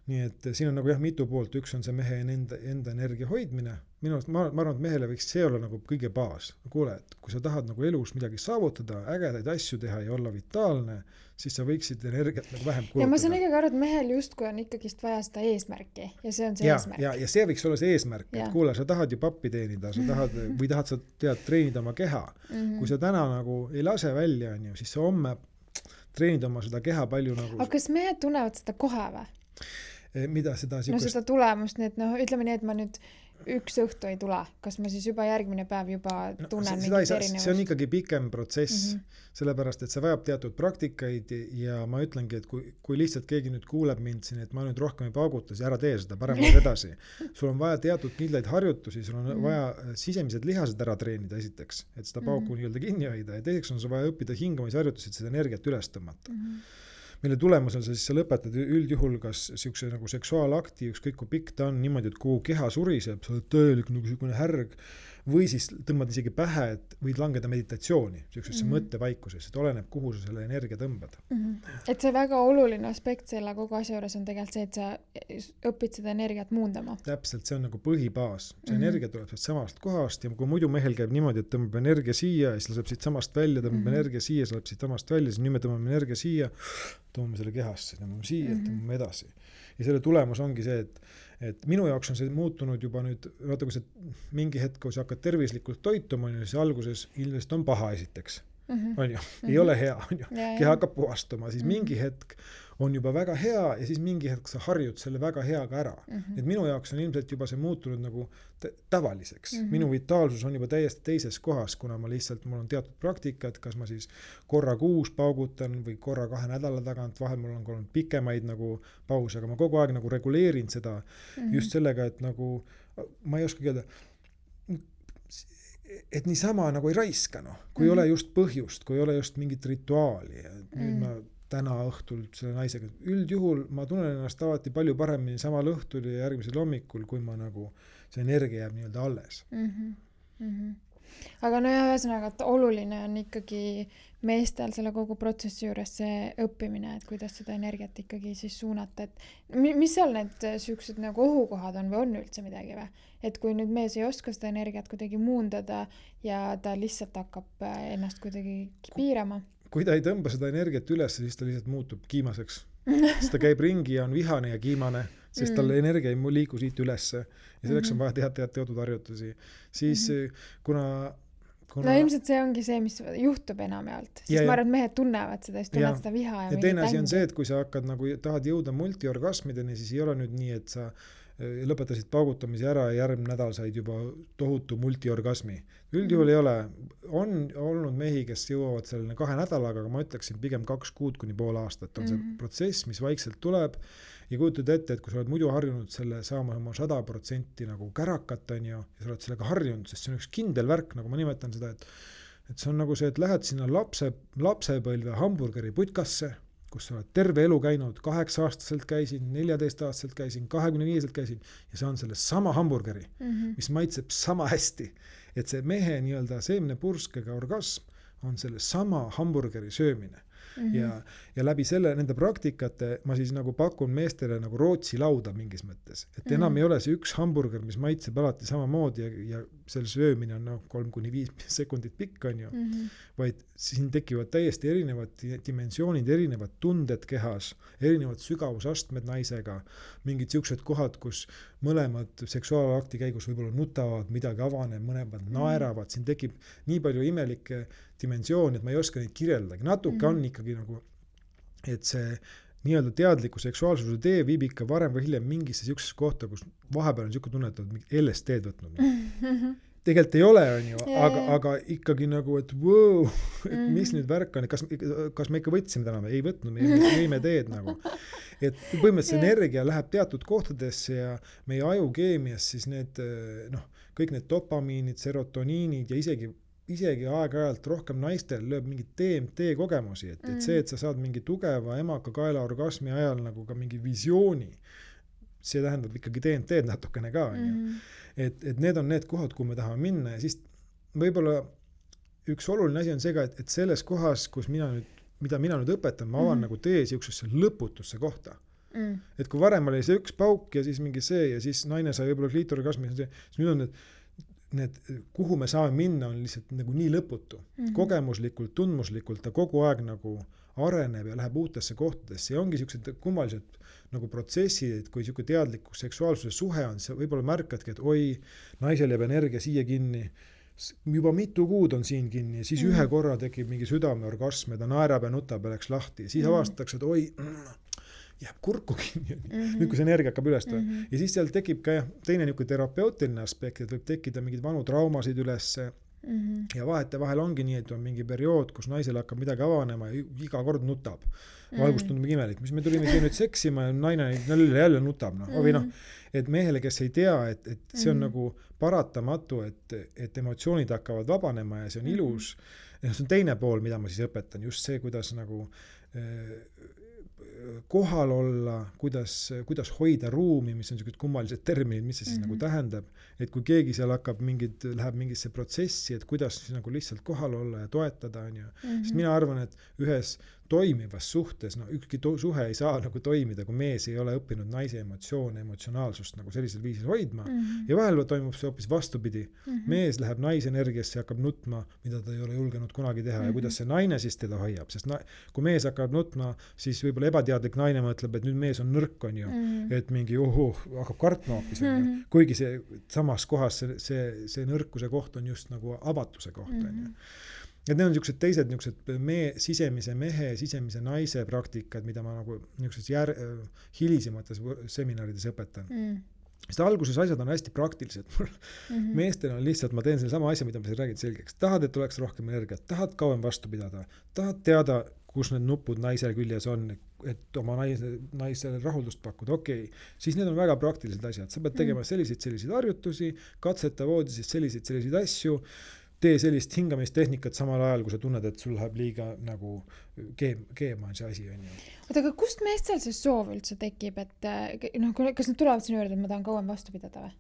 nii et siin on nagu jah mitu poolt, üks on see mehe enda energia hoidmine, minu arust ma arvan, et mehele võiks see olla nagu kõige baas. Kuule, et kui sa tahad nagu elus midagi saavutada, ägedaid asju teha ja olla vitaalne, siis sa võiksid energiat nagu vähem kulutada. Ja ma saan ikkagi aru, et mehel justkui on ikkagist vaja seda eesmärki ja see on see eesmärk. Ja see võiks olla see eesmärk, et kuule, sa tahad ju pappi teenida, sa tahad, või tahad sa treenida oma keha. Kui sa täna nagu ei lase välja, siis sa homme treenid oma seda keha palju nagu... Aga kas mehed tunnevad seda kohe või? Mida seda no seda tulemust, nii et ütleme nii, et ma nüüd üks õhtu ei tule, kas ma siis juba järgmine päev juba tunnen mingit erinevust? See on ikkagi pikem protsess, sellepärast, et see vajab teatud praktikaid ja ma ütlengi, et kui lihtsalt keegi nüüd kuuleb mind siin, et ma nüüd rohkem ei pauguta, siis ära tee seda, parem edasi. Sul on vaja teatud kindlaid harjutusi, sul on vaja sisemised lihased ära treenida esiteks, et seda pauku nii-öelda kinni hoida ja teiseks on sul vaja õppida hingamisharjutusi, et seda energiat üles tõmmata. Mille tulemusel siis sa lõpetad üldjuhul kas siukse nagu seksuaalakti, ükskõik kui pikk ta on niimoodi, et kogu keha suriseb, sa oled tõelik nagu siukene härg või siis tõmbad isegi pähe, et võid langeda meditatsiooni, siuksesse mõttevaikuses, et oleneb, kuhu sa selle energia tõmbad. Et see väga oluline aspekt selle kogu asja juures on tegelikult see, et sa õpid seda energiat muundama. Täpselt, see on nagu põhibaas. See energia tuleb samast kohast ja kui muidu mehel käib niimoodi, et tõmbab energia siia ja siis läheb siit samast välja, tõmbab energia siia, siis läheb siit samast välja, siis nüüd me tõmbame energia siia, tõmbame selle kehasse, tõmbame siia, tõmbame edasi. Ja selle tulemus ongi see, et minu jaoks on see muutunud juba nüüd, vaata kui see mingi hetk, kui sa hakkad tervislikult toituma, siis alguses ilmselt on paha esiteks. On ju, ei ole hea, on ju. Keha hakkab puhastuma, siis mingi hetk on juba väga hea ja siis mingi hetk sa harjud selle väga heaga ära. Et minu jaoks on ilmselt juba see muutunud nagu tavaliseks. Minu vitaalsus on juba täiesti teises kohas, kuna mul on teatud praktikad, kas ma siis korra kuus paugutan või korra 2 nädala tagant, vahel mul on olnud pikemaid nagu pause, aga ma kogu aeg nagu reguleerin seda just sellega, et nagu ma ei oska öelda, et niisama nagu ei raiska, kui ei ole just põhjust, kui ei ole just mingit rituaali. Nüüd ma täna õhtul selle naisega, üldjuhul ma tunnen ennast alati palju paremini samal õhtul ja järgmisel hommikul, kui ma nagu see energia jääb nii-öelda alles. Aga no ja ühesõnaga, et oluline on ikkagi meestel selle kogu protsessi juures see õppimine, et kuidas seda energiat ikkagi siis suunata, et mis seal need süüksed nagu ohukohad on või on üldse midagi või? Et kui nüüd mees ei oska seda energiat kuidagi muundada ja ta lihtsalt hakkab ennast kuidagi piirama. Kui ta ei tõmba seda energiat üles, siis ta lihtsalt muutub kiimaseks. Siis ta käib ringi ja on vihane ja kiimane, sest talle energia ei liigu siit ülesse ja selleks on vaja teha teatud harjutusi. Siis kuna no ilmselt see ongi see, mis juhtub enamjaolt. Siis ma arvan, et mehed tunnevad seda, siis tunnevad seda viha ja teine asi on see, et kui sa hakkad nagu tahad jõuda multiorgasmideni, siis ei ole nüüd nii, et sa lõpetasid paugutamise ära ja järgmine nädal said juba tohutu multiorgasmi. Üldjuhul ei ole. On olnud mehi, kes jõuavad selline 2 nädalaga, aga ma ütleksin pigem 2 kuud kuni pool aastat on see protsess, mis vaikselt tuleb ja kujutad ette, et kui sa oled muidu harjunud selle saama oma 100% nagu kärakat on ju, ja sa oled sellega harjunud, sest see on üks kindel värk, nagu ma nimetan seda, et see on nagu see, et lähed sinna lapsepõlve hamburgeri putkasse, kus sa oled terve elu käinud, 8-aastaselt käisin, 14-aastaselt käisin, 25-selt käisin ja see on selle sama hamburgeri, mis maitseb sama hästi. Et see mehe nii-öelda seemnepurskega orgasm on selle sama hamburgeri söömine. Ja läbi selle, nende praktikate ma siis nagu pakun meestele nagu Rootsi lauda mingis mõttes. Et enam ei ole see üks hamburger, mis maitseb alati samamoodi ja selle söömine on 3-5 sekundit pikk on ju, vaid siin tekivad täiesti erinevad dimensioonid, erinevad tunded kehas, erinevad sügavusastmed naisega, mingid siuksed kohad, kus mõlemad seksuaalakti käigus võib-olla nutavad, midagi avaneb, mõlemad naeravad, siin tekib nii palju imelikke dimensiooni, et ma ei oska neid kirjeldagi. Natuke on ikkagi nagu, et see nii-öelda teadliku seksuaalsuse tee viib ikka varem või hiljem mingisse siuksesse kohta, kus vahepeal on siuke tunne, et oled LSD-d võtnud. Tegelikult ei ole, on ju, aga ikkagi nagu, et wow, et mis nüüd värk on, kas me ikka võtsime täna, ei võtnud, me jõime teed nagu. Et põhimõtteliselt energia läheb teatud kohtadesse ja meie ajukeemias siis need, kõik need dopamiinid, serotoniinid ja isegi aeg-ajalt rohkem naistel lööb mingit DMT kogemusi, et see, et sa saad mingi tugeva emaka kaela orgasmi ajal nagu ka mingi visiooni, see tähendab ikkagi DMT natukene ka, on ju. Et need on need kohad, kuhu me tahame minna ja siis võib-olla üks oluline asi on see ka, et selles kohas, kus mida mina nüüd õpetan, ma avan nagu tee siuksesse lõputusse kohta. Et kui varem oli see üks pauk ja siis mingi see ja siis naine sai võib-olla kliitorgasmi, siis nüüd on need, kuhu me saame minna, on lihtsalt nagu nii lõputu. Kogemuslikult, tundmuslikult ta kogu aeg nagu areneb ja läheb uutesse kohtadesse ja ongi siuksed kummalised nagu protsessid, et kui siuke teadlikkus seksuaalsuse suhe on, sa võib-olla märkadki, et oi, naisel jääb energia siia kinni, juba mitu kuud on siin kinni ja siis ühe korra tekib mingi südameorgasm ja ta naerab ja nutab ja läks lahti ja siis avastatakse, et oi, jääb kurku kinni, nüüd kui see energia hakkab üles ja siis seal tekib ka teine niisugune terapeutiline aspekt, et võib tekkida mingeid vanu traumasid ülesse ja vahetevahel ongi nii, et on mingi periood, kus naisel hakkab midagi avanema ja iga kord nutab. Algust tundub imelik, mis me tulime siia nüüd seksima ja naine jälle nutab. Või et mehele, kes ei tea, et see on nagu paratamatu, et emotsioonid hakkavad vabanema ja see on ilus. Ja see on teine pool, mida ma siis õpetan, just see, kuidas nagu kohal olla, kuidas hoida ruumi, mis on sellised kummalised terminid, mis see siis nagu tähendab, et kui keegi seal läheb mingisse protsessi, et kuidas siis nagu lihtsalt kohal olla ja toetada, sest mina arvan, et ühes toimivas suhtes, ükski suhe ei saa nagu toimida, kui mees ei ole õppinud naise emotsioone, emotsionaalsust nagu sellisel viisil hoidma ja vahel toimub see hoopis vastupidi. Mees läheb naise energiasse ja hakkab nutma, mida ta ei ole julgenud kunagi teha ja kuidas see naine siis teda hoiab, sest kui mees hakkab nutma, siis võib-olla ebateadlik naine mõtleb, et nüüd mees on nõrk, et mingi hakkab kartma hoopis, kuigi see samas kohas see nõrkuse koht on just nagu avatuse koht, Ja need on niisugused teised sisemise mehe, sisemise naise praktikad, mida ma nagu hilisemates seminarides õpetan. Sest alguses asjad on hästi praktilised. Meestel on lihtsalt, ma teen selle sama asja, mida ma siin räägin selgeks. Tahad, et oleks rohkem energiat, tahad kauem vastu pidada, tahad teada, kus need nupud naise küljes on, et oma naisele rahuldust pakkuda, siis need on väga praktilised asjad. Sa pead tegema selliseid harjutusi, katseta voodis selliseid asju, tee sellist hingamistehnikat samal ajal, kui sa tunned, et sul läheb liiga nagu keema on see asi. Oota, aga kust meestel see soov üldse tekib, et kas nad tulevad sinu juurde, et ma tahan kauem vastu pidada või?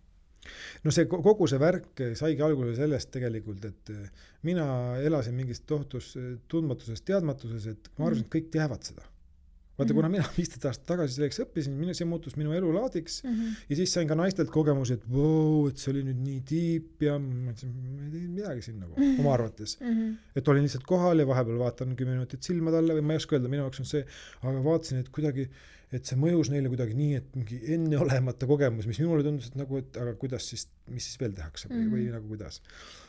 No see kogu see värk saigi alguse sellest tegelikult, et mina elasin mingist tohutus tundmatuses, teadmatuses, et ma arvasin, et kõik teavad seda. Vaata, kuna mina 15 aastat tagasi selleks õppisin, see muutus minu elulaadiks ja siis sain ka naistelt kogemusi, et et see oli nüüd nii tiip ja ma ei teinud midagi siin nagu oma arvates. Et olin lihtsalt kohal ja vahepeal vaatan 10 minutit silma talle või ma ei oska öelda, minu jaoks on see, aga vaatasin, et kuidagi, et see mõjus neile kuidagi nii, et mingi enneolemata kogemus, mis minule tundus, et nagu, et aga kuidas siis, mis siis veel tehakse või nagu kuidas.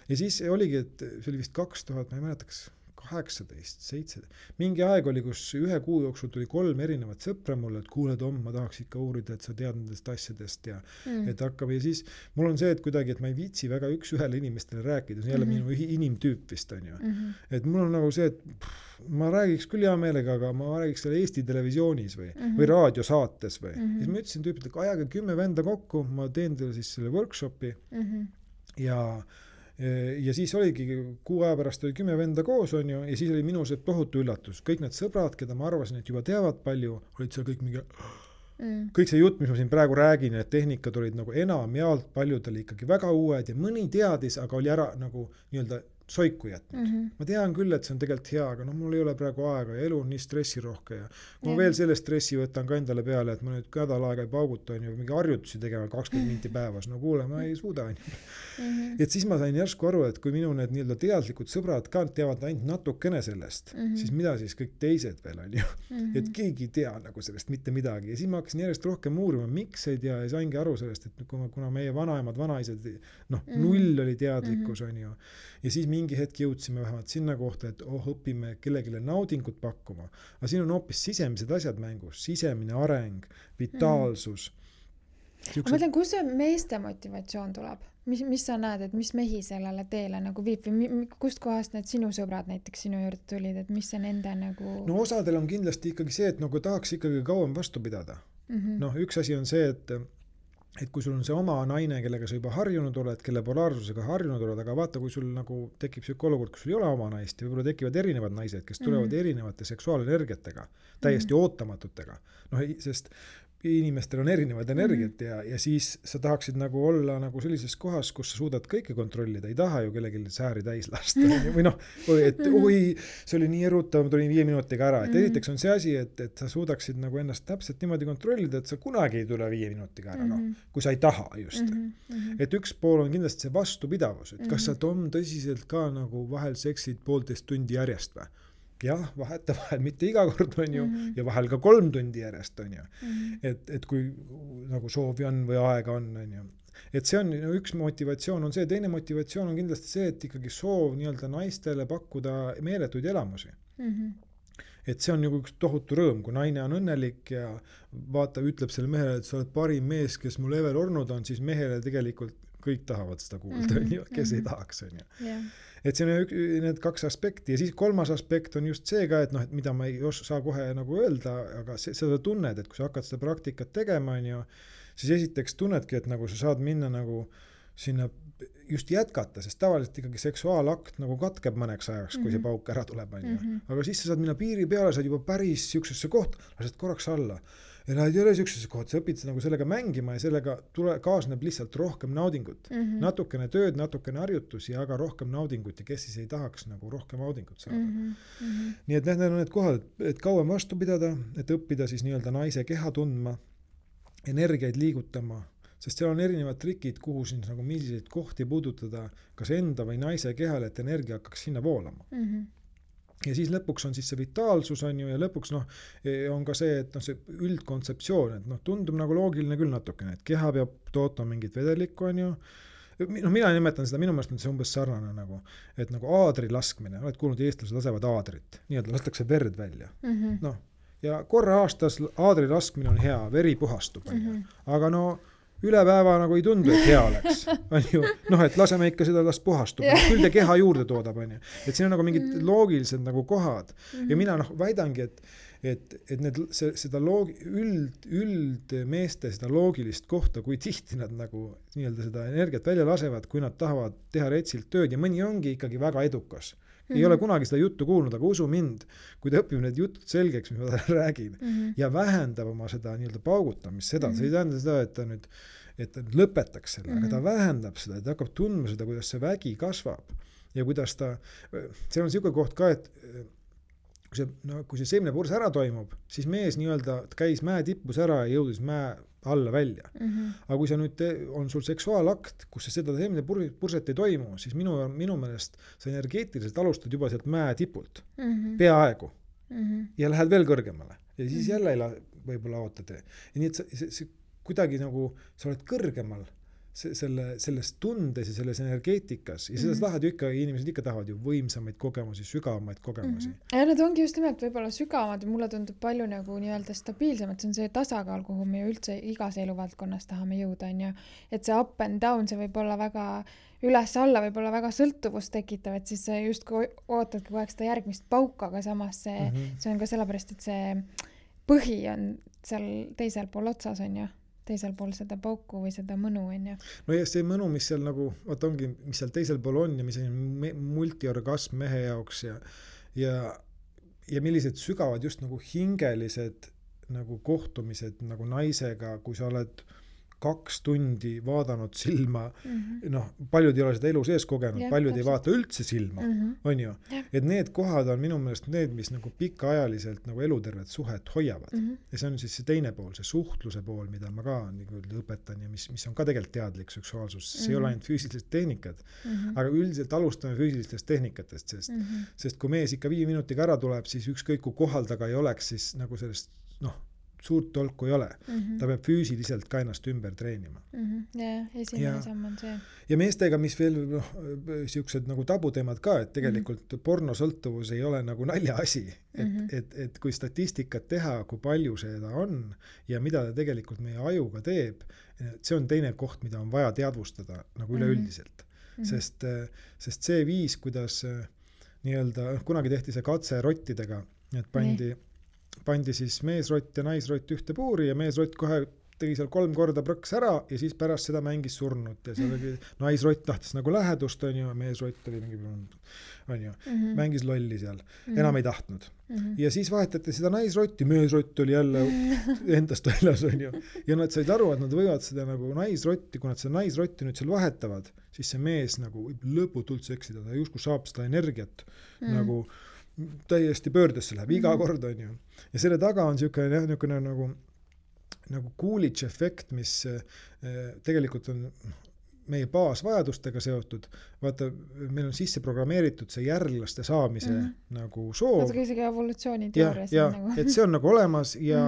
Ja siis oligi, et see oli vist 2000, ma ei mäleta, kas 18, 7. Mingi aeg oli, kus ühe kuu jooksul tuli 3 erinevat sõpra mulle, et kuule Tom, ma tahaks ikka uurida, et sa tead nendest asjadest ja et hakkab ja siis mul on see, et kuidagi, et ma ei viitsi väga üks-ühele inimestele rääkida, see on jälle minu inimtüüp vist on ju. Et mul on nagu see, et ma räägiks küll hea meelega, aga ma räägiks selle Eesti televisioonis või raadiosaates või. Ja siis ma ütlesin tüüpilt, et ajage 10 venda kokku, ma teen teile siis selle workshopi ja siis oligi kuu aja pärast oli 10 venda koos on ju ja siis oli minu see tohutu üllatus. Kõik need sõbrad, keda ma arvasin, et juba teavad palju, olid seal kõik mingi kõik see jutt, mis ma siin praegu räägin, et tehnikad olid nagu enamjaolt paljudel ikkagi väga uued ja mõni teadis, aga oli ära nagu nii-öelda soiku jätnud. Ma tean küll, et see on tegelikult hea, aga mul ei ole praegu aega ja elu on nii stressirohke ja kui ma veel selle stressi võtan ka endale peale, et ma nüüd nädal aega ei pauguta on ju mingi harjutusi tegema 20 minti päevas, kuule, ma ei suuda on ju. Et siis ma sain järsku aru, et kui minu need nii-öelda teadlikud sõbrad ka teavad ainult natukene sellest, siis mida siis kõik teised veel on ju. Et keegi ei tea nagu sellest mitte midagi ja siis ma hakkasin järjest rohkem uurima, miks ei tea ja saingi aru sellest, et kuna meie vanaemad, vanaisad, null oli teadlikkus on ju ja siis mingi hetk jõudsime vähemalt sinna kohta, et õpime kellegile naudingut pakkuma. Aga siin on hoopis sisemised asjad mängus, sisemine areng, vitaalsus. Ma mõtlen, kus see meeste motivatsioon tuleb? Mis sa näed, et mis mehi sellele teele nagu viib või kust kohast need sinu sõbrad näiteks sinu juurde tulid, et mis see nende nagu... No osadel on kindlasti ikkagi see, et nagu tahaks ikkagi kauem vastu pidada. Üks asi on see, et kui sul on see oma naine, kellega sa juba harjunud oled, kelle polaarsusega harjunud oled, aga vaata, kui sul nagu tekib selline olukord, kus sul ei ole oma naist ja võib-olla tekivad erinevad naised, kes tulevad erinevate seksuaalenergiatega, täiesti ootamatutega. Sest inimestel on erinevad energiat ja siis sa tahaksid nagu olla nagu sellises kohas, kus sa suudad kõike kontrollida, ei taha ju kellelgi sääri täis lasta või noh, et see oli nii erutav, ma tulin 5 minutiga ära, et esiteks on see asi, et sa suudaksid nagu ennast täpselt niimoodi kontrollida, et sa kunagi ei tule 5 minutiga ära, noh, kui sa ei taha just. Et üks pool on kindlasti see vastupidavus, et kas sa Tom tõsiselt ka nagu vahel seksid 1,5 tundi järjest või? Jah, vahetevahel mitte iga kord on ju ja vahel ka 3 tundi järjest on ju. Et kui nagu soovi on või aega on ju. Et see on üks motivatsioon on see, teine motivatsioon on kindlasti see, et ikkagi soov nii-öelda naistele pakkuda meeletuid elamusi. Et see on nagu üks tohutu rõõm, kui naine on õnnelik ja vaata, ütleb selle mehele, et sa oled parim mees, kes mul ever olnud on, siis mehele tegelikult kõik tahavad seda kuulda, kes ei tahaks on ju. Et see on need 2 aspekti ja siis 3. aspekt on just see ka, et noh, et mida ma ei saa kohe nagu öelda, aga seda tunned, et kui sa hakkad seda praktikat tegema, on ju, siis esiteks tunnedki, et nagu sa saad minna nagu sinna just jätkata, sest tavaliselt ikkagi seksuaalakt nagu katkeb mõneks ajaks, kui see pauk ära tuleb, on ju. Aga siis sa saad minna piiri peale, saad juba päris siuksesse kohta, lased korraks alla. Ja nad ei ole siuksesse kohta, sa õpid nagu sellega mängima ja sellega kaasneb lihtsalt rohkem naudingut. Natukene tööd, natukene harjutusi, aga rohkem naudingut ja kes siis ei tahaks nagu rohkem naudingut saada. Nii et need on need kohad, et kauem vastu pidada, et õppida siis nii-öelda naise keha tundma, energiaid liigutama, sest seal on erinevad trikid, kuhu siin nagu milliseid kohti puudutada, kas enda või naise kehal, et energia hakkaks sinna voolama. Ja siis lõpuks on siis see vitaalsus on ju ja lõpuks on ka see, et see üldkontseptsioon, et tundub nagu loogiline küll natukene, et keha peab tootma mingit vedelikku on ju. Mina nimetan seda, minu meelest on see umbes sarnane nagu, et nagu aadri laskmine, oled kuulnud, eestlased lasevad aadrit, nii-öelda lastakse verd välja. Ja korra aastas aadri laskmine on hea, veri puhastub on ju, aga üle päeva nagu ei tundu, et hea oleks. On ju, et laseme ikka seda las puhastub. Küll te keha juurde toodab, on ju. Et siin on nagu mingid loogilised nagu kohad. Ja mina väidangi, et seda üldmeeste seda loogilist kohta, kui tihti nad nagu nii-öelda seda energiat välja lasevad, kui nad tahavad teha retsilt tööd ja mõni ongi ikkagi väga edukas. Ei ole kunagi seda juttu kuulnud, aga usu mind, kui ta õpib need jutud selgeks, mis ma talle räägin, ja vähendab oma seda nii-öelda paugutamist, seda, see ei tähenda seda, et ta lõpetaks selle, aga ta vähendab seda, et ta hakkab tundma seda, kuidas see vägi kasvab ja kuidas ta, see on selline koht ka, et kui see seemnepurs ära toimub, siis mees nii-öelda käis mäe tippus ära ja jõudis mäe alla välja. Aga kui sa nüüd on sul seksuaalakt, kus seda seemnepurset ei toimu, siis minu meelest sa energeetiliselt alustad juba sealt mäe tipult. Peaaegu. Ja lähed veel kõrgemale. Ja siis jälle võib-olla ootad. Ja nii, et see kuidagi nagu sa oled kõrgemal selles tundes ja selles energeetikas ja seda tahad ju ikka, inimesed ikka tahavad ju võimsamaid kogemusi, sügavamaid kogemusi. Ja need ongi just nimelt võib-olla sügavamad ja mulle tundub palju nagu nii-öelda stabiilsemad, see on see tasakaal, kuhu me üldse igas eluvaldkonnas tahame jõuda, on ju. Et see up and down, see võib olla väga üles-alla, võib olla väga sõltuvust tekitav, et siis just kui ootadki kogu aeg seda järgmist pauka, aga samas see on ka sellepärast, et see põhi on seal teisel pool otsas, on ju. Teisel pool seda pauku või seda mõnu on ju. No ja see mõnu, mis seal nagu, ongi, mis seal teisel pool on ja mis on multiorgasm mehe jaoks ja millised sügavad just nagu hingelised nagu kohtumised nagu naisega, kui sa oled 2 tundi vaadanud silma, paljud ei ole seda elu sees kogenud, paljud ei vaata üldse silma, on ju. Et need kohad on minu meelest need, mis nagu pikaajaliselt nagu elutervet suhet hoiavad. Ja see on siis see teine pool, see suhtluse pool, mida ma ka nagu õpetan ja mis on ka tegelikult teadlik seksuaalsus. See ei ole ainult füüsilised tehnikad, aga üldiselt alustame füüsilistest tehnikatest, sest kui mees ikka 5 minutiga ära tuleb, siis ükskõik kui kohal taga ei oleks, siis nagu sellest, suurt tolku ei ole. Ta peab füüsiliselt ka ennast ümber treenima. Esimene samm on see. Ja meestega, mis veel siuksed nagu tabuteemad ka, et tegelikult pornosõltuvus ei ole nagu naljaasi. Et kui statistikat teha, kui palju seda on ja mida ta tegelikult meie ajuga teeb, see on teine koht, mida on vaja teadvustada nagu üleüldiselt. Sest see viis, kuidas nii-öelda, kunagi tehti see katse rottidega, et pandi siis meesrott ja naisrott ühte puuri ja meesrott kohe tegi seal 3 korda prõks ära ja siis pärast seda mängis surnut ja seal oli naisrott tahtis nagu lähedust, on ju, meesrott oli mingi, on ju, mängis lolli seal, enam ei tahtnud. Ja siis vahetati seda naisrotti, meesrott oli jälle endast väljas, on ju. Ja nad said aru, et nad võivad seda nagu naisrotti, kui nad seda naisrotti nüüd seal vahetavad, siis see mees nagu võib lõputult seksida, ta justkui saab seda energiat nagu täiesti pöördesse läheb iga kord, on ju. Ja selle taga on niisugune nagu Coolidge efekt, mis tegelikult on meie baasvajadustega seotud. Vaata, meil on sisse programmeeritud see järglaste saamise nagu soov. Vaata isegi evolutsiooniteoorias. Ja, et see on nagu olemas ja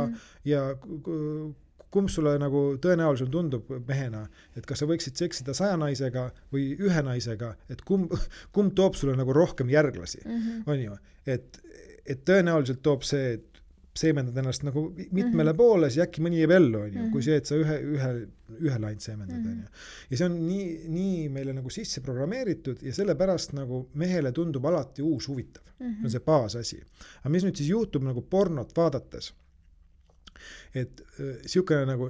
kumb sulle nagu tõenäoliselt tundub mehena, et kas sa võiksid seksida 100 naisega või 1 naisega, et kumb toob sulle nagu rohkem järglasi, on ju. Et tõenäoliselt toob see, et seemendad ennast nagu mitmele poole, siis äkki mõni jääb ellu, on ju, kui see, et sa ühe laint seemendad, on ju. Ja see on nii meile nagu sisse programmeeritud ja sellepärast nagu mehele tundub alati uus huvitav. See on see baasasi. Aga mis nüüd siis juhtub nagu pornot vaadates? Et siukene nagu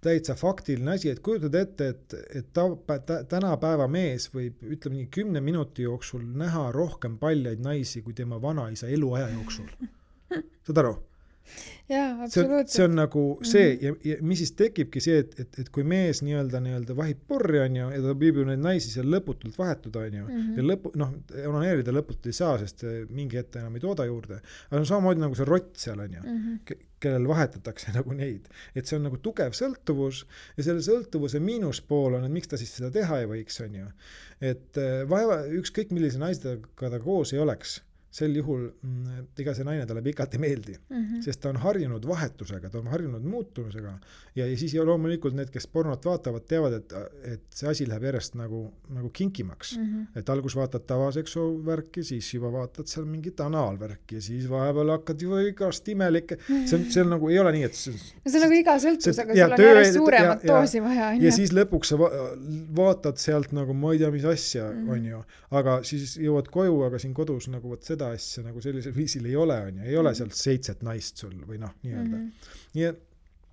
täitsa faktiline asi, et kujutad ette, et tänapäeva mees võib, ütleme nii, 10 minuti jooksul näha rohkem paljaid naisi kui tema vanaisa eluaja jooksul. Saad aru? Jaa, absoluutselt. See on nagu see ja mis siis tekibki see, et kui mees nii-öelda vahib porri, on ju, ja ta võib ju neid naisi seal lõputult vahetuda, on ju, ja onaneerida lõputult ei saa, sest mingi ette enam ei tooda juurde. Aga on samamoodi nagu see rott seal, on ju, kellel vahetatakse nagu neid. Et see on nagu tugev sõltuvus ja selle sõltuvuse miinuspool on, et miks ta siis seda teha ei võiks, on ju. Et ükskõik millise naisega ta koos ei oleks, sel juhul ega see naine talle pikalt ei meeldi, sest ta on harjunud vahetusega, ta on harjunud muutumisega ja siis loomulikult need, kes pornot vaatavad, teavad, et see asi läheb järjest nagu kinkimaks. Et algus vaatad tavaseksuaalvärki, siis juba vaatad seal mingit anaalvärki ja siis vahepeal hakkad ju igast imelikke. See on nagu, ei ole nii, et see on nagu iga sõltusega, sul on järjest suuremat doosi vaja. Ja siis lõpuks sa vaatad sealt nagu ma ei tea, mis asja on ju, aga siis jõuad koju, aga siin kodus nagu võt seda asja nagu sellisel viisil ei ole, on ju, ei ole sealt 7 naist sul või nii-öelda. Nii et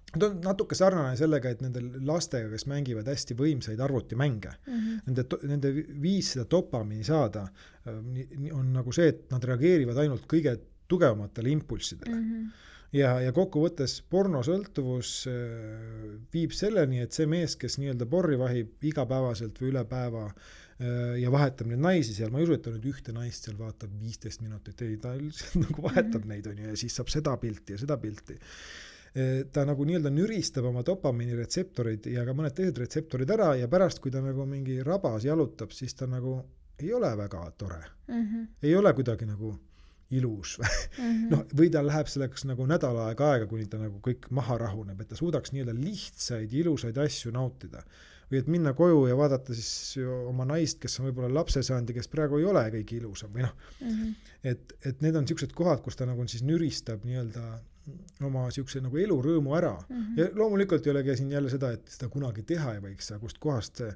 ta on natuke sarnane sellega, et nendel lastega, kes mängivad hästi võimsaid arvutimänge, nende viis seda dopamiini saada on nagu see, et nad reageerivad ainult kõige tugevamatele impulssidele. Ja kokkuvõttes pornosõltuvus viib selleni, et see mees, kes nii-öelda porri vahib igapäevaselt või üle päeva ja vahetab neid naisi seal, ma ei usu, et ta nüüd ühte naist seal vaatab 15 minutit, ei, ta nagu vahetab neid, on ju, ja siis saab seda pilti ja seda pilti. Ta nagu nii-öelda nüristab oma dopamiini retseptorid ja ka mõned teised retseptorid ära ja pärast, kui ta nagu mingi rabas jalutab, siis ta nagu ei ole väga tore. Ei ole kuidagi nagu ilus. Või ta läheb selleks nagu nädal aega, kuni ta nagu kõik maha rahuneb, et ta suudaks nii-öelda lihtsaid, ilusaid asju nautida. Või et minna koju ja vaadata siis oma naist, kes on võib-olla lapse saanud ja kes praegu ei ole kõige ilusam. Või et need on niisugused kohad, kus ta nagu siis nüristab nii-öelda oma niisuguse nagu elurõõmu ära. Ja loomulikult ei olegi siin jälle seda, et seda kunagi teha ei võiks, kust kohast see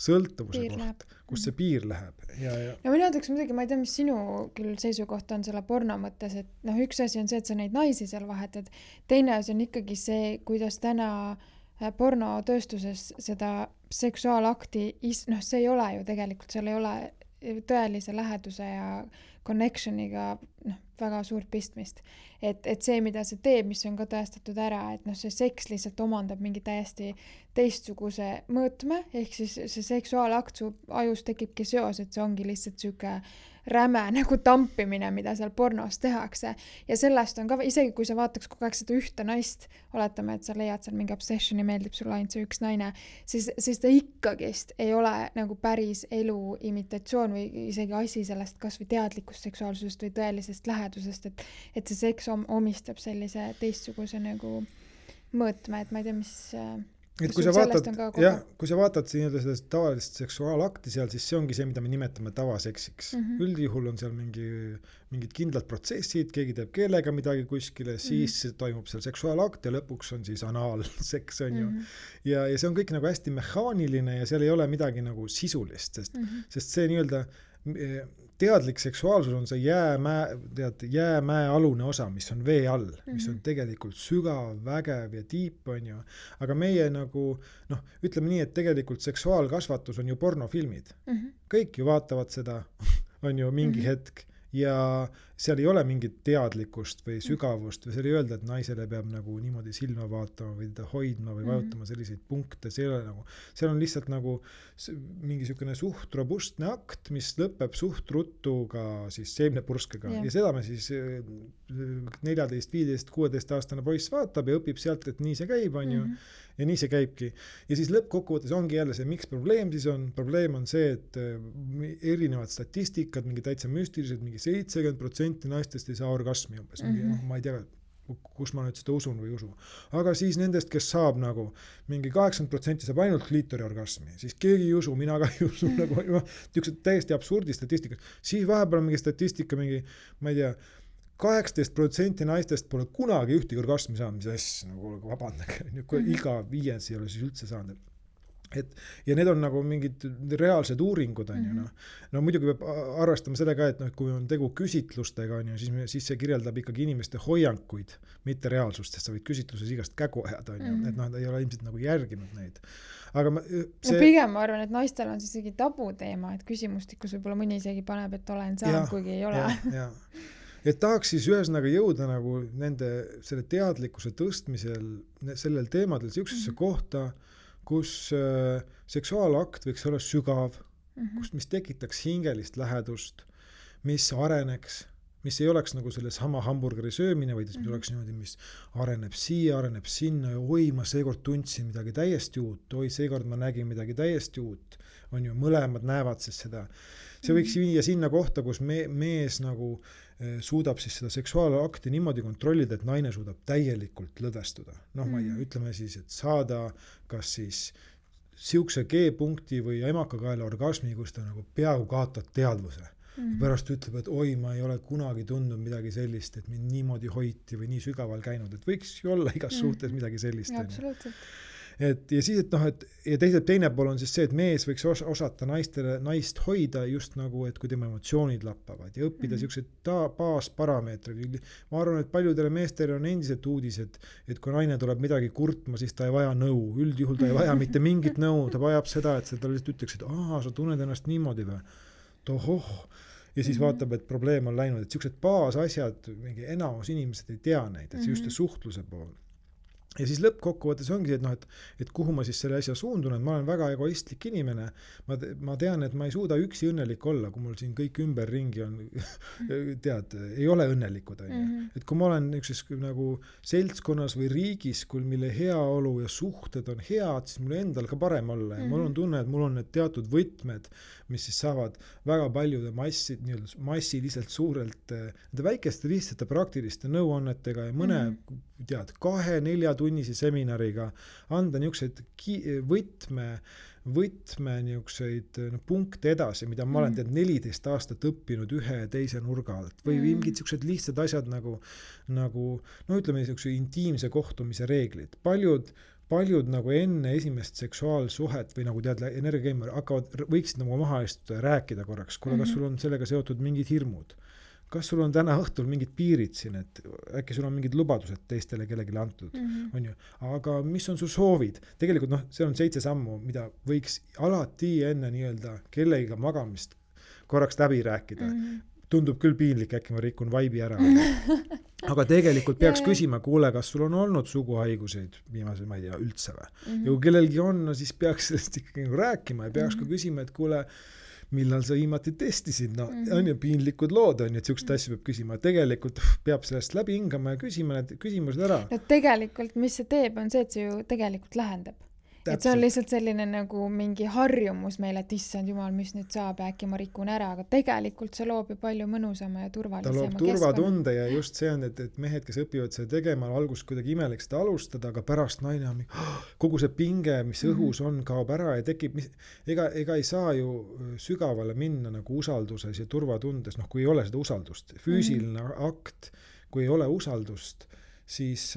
sõltuvuse koht, kust see piir läheb. Ja mina ütleks muidugi, ma ei tea, mis sinu küll seisukoht on selle porno mõttes, et üks asi on see, et sa neid naisi seal vahetad. Teine asi on ikkagi see, kuidas täna pornotööstuses seda seksuaalakti, see ei ole ju tegelikult, seal ei ole tõelise läheduse ja connectioniga väga suurt pistmist. Et see, mida see teeb, mis on ka tõestatud ära, et see seks lihtsalt omandab mingi täiesti teistsuguse mõõtme, ehk siis see seksuaalakt su ajus tekibki seos, et see ongi lihtsalt süke räme nagu tampimine, mida seal pornos tehakse. Ja sellest on ka, isegi kui sa vaataks kogu aeg seda ühte naist, oletame, et sa leiad seal mingi obsessioni, meeldib sulle ainult see üks naine, siis ta ikkagist ei ole nagu päris elu imitatsioon või isegi asi sellest kas või teadlikust seksuaalsusest või tõelisest lähedusest, et see seks omistab sellise teistsuguse nagu mõõtme, et ma ei tea, mis... Et kui sa vaatad seda tavalist seksuaalakti seal, siis see ongi see, mida me nimetame tavaseksiks. Üldjuhul on seal mingid kindlad protsessid, keegi teeb keelega midagi kuskile, siis toimub seal seksuaalakt ja lõpuks on siis anaalseks, on ju. Ja see on kõik nagu hästi mehaaniline ja seal ei ole midagi nagu sisulist, sest see nii-öelda teadlik seksuaalsus on see jäämäe alune osa, mis on vee all, mis on tegelikult sügav, vägev ja tiip, on ju. Aga meie nagu, ütleme nii, et tegelikult seksuaalkasvatus on ju pornofilmid. Kõik ju vaatavad seda, on ju mingi hetk. Ja seal ei ole mingit teadlikkust või sügavust või seal ei öelda, et naisele peab nagu niimoodi silma vaatama või teda hoidma või vajutama selliseid punkte, see ei ole nagu, seal on lihtsalt nagu mingi sükene suht robustne akt, mis lõpeb suht ruttu ka siis seemnepurskega ja seda me siis 14, 15, 16 aastane poiss vaatab ja õpib sealt, et nii see käib, on ju. Ja nii see käibki. Ja siis lõppkokkuvõttes ongi jälle see, miks probleem siis on. Probleem on see, et erinevad statistikad, mingi täitsa müstilised, mingi 70% naistest ei saa orgasmi umbes. Ma ei tea, kus ma nüüd seda usun või usu. Aga siis nendest, kes saab nagu mingi 80% saab ainult kliitori orgasmi, siis keegi ei usu, mina ka ei usu. Nagu, täiesti absurdi statistika. Siis vahepeal mingi statistika, mingi, ma ei tea, 18% naistest pole kunagi ühtegi orgasmi saanud, mis asja, nagu vabandage, iga 5 ei ole siis üldse saanud. Ja need on nagu mingid reaalsed uuringud, on ju. No muidugi peab arvestama sellega, et kui on tegu küsitlustega, on ju, siis see kirjeldab ikkagi inimeste hoiankuid, mitte reaalsust, sest sa võid küsitluses igast kägu ajada, on ju, et ei ole ilmselt nagu järginud neid. Aga pigem ma arvan, et naistel on siis isegi tabuteema, et küsimustikus võib-olla mõni isegi paneb, et olen saanud, kuigi ei ole. Et tahaks siis ühesõnaga jõuda nagu nende selle teadlikkuse tõstmisel sellel teemadel siuksesse kohta, kus seksuaalakt võiks olla sügav, mis tekitaks hingelist lähedust, mis areneks, mis ei oleks nagu selle sama hamburgeri söömine, vaid mis oleks niimoodi, mis areneb siia, areneb sinna ja oi, ma seekord tundsin midagi täiesti uut, oi, seekord ma nägin midagi täiesti uut, on ju, mõlemad näevad siis seda. See võiks viia sinna kohta, kus mees nagu suudab siis seda seksuaalakti niimoodi kontrollida, et naine suudab täielikult lõdvestuda. Ma ei tea, ütleme siis, et saada kas siis siukse G-punkti või emakakaela orgasmi, kus ta nagu peaaegu kaotab teadvuse. Ja pärast ütleb, et oi, ma ei ole kunagi tundnud midagi sellist, et mind niimoodi hoiti või nii sügaval käinud, et võiks ju olla igas suhtes midagi sellist. Ja, absoluutselt. Ja siis, ja teine pool on siis see, et mees võiks osata naist hoida just nagu, et kui tema emotsioonid lappavad ja õppida siuksed baasparameetrid. Ma arvan, et paljudele meestele on endiselt uudis, et kui naine tuleb midagi kurtma, siis ta ei vaja nõu. Üldjuhul ta ei vaja mitte mingit nõu, ta vajab seda, et ta lihtsalt ütleks, et sa tunned ennast niimoodi või? Tohoh! Ja siis vaatab, et probleem on läinud, et siuksed baasasjad, mingi enamus inimesed ei tea neid, et see just suhtluse pool. Ja siis lõppkokkuvõttes ongi, et kuhu ma siis selle asja suundun, et ma olen väga egoistlik inimene. Ma tean, et ma ei suuda üksi õnnelik olla, kui mul siin kõik ümberringi on, ei ole õnnelikud. Et kui ma olen ükses nagu seltskonnas või riigis, mille heaolu ja suhted on head, siis mul endal ka parem olla. Ja mul on tunne, et mul on need teatud võtmed, mis siis saavad väga paljude massiliselt suurelt väikeste lihtsate praktiliste nõuannetega ja mõne 2-4 tunnise seminariga anda niisuguseid võtme niisuguseid punkte edasi, mida ma olen 14 aastat õppinud ühe ja teise nurga alt. Või mingid niisugused lihtsad asjad nagu ütleme niisuguse intiimse kohtumise reeglid. Paljud nagu enne esimest seksuaalsuhet või nagu energiakeemia võiksid nagu maha istuda ja rääkida korraks. Kuule, kas sul on sellega seotud mingid hirmud? Kas sul on täna õhtul mingid piirid siin, et äkki sul on mingid lubadused teistele kellegile antud, on ju. Aga mis on su soovid? Tegelikult see on 7 sammu, mida võiks alati enne nii-öelda kellegiga magamist korraks läbi rääkida. Tundub küll piinlik, äkki ma rikun vaibi ära. Aga tegelikult peaks küsima, kuule, kas sul on olnud suguhaiguseid viimase, ma ei tea, üldse või? Ja kui kellelgi on, siis peaks sellest ikkagi rääkima ja peaks ka küsima, et kuule, millal sa viimati testisid, on ju piinlikud lood, on ju, et siukest asja peab küsima. Tegelikult peab sellest läbi hingama ja küsima need küsimused ära. No tegelikult, mis see teeb, on see, et see ju tegelikult lähendab. Et see on lihtsalt selline nagu mingi harjumus meile, et issand jumal, mis nüüd saab, äkki ma rikun ära, aga tegelikult see loob ju palju mõnusama ja turvalisema keskkonna. Ta loob turvatunde ja just see on, et mehed, kes õpivad seda tegema, alguses kuidagi imelik seda alustada, aga pärast naine on kogu see pinge, mis õhus on, kaob ära ja tekib, ega ei saa ju sügavale minna nagu usalduses ja turvatundes, kui ei ole seda usaldust. Füüsiline akt, kui ei ole usaldust, siis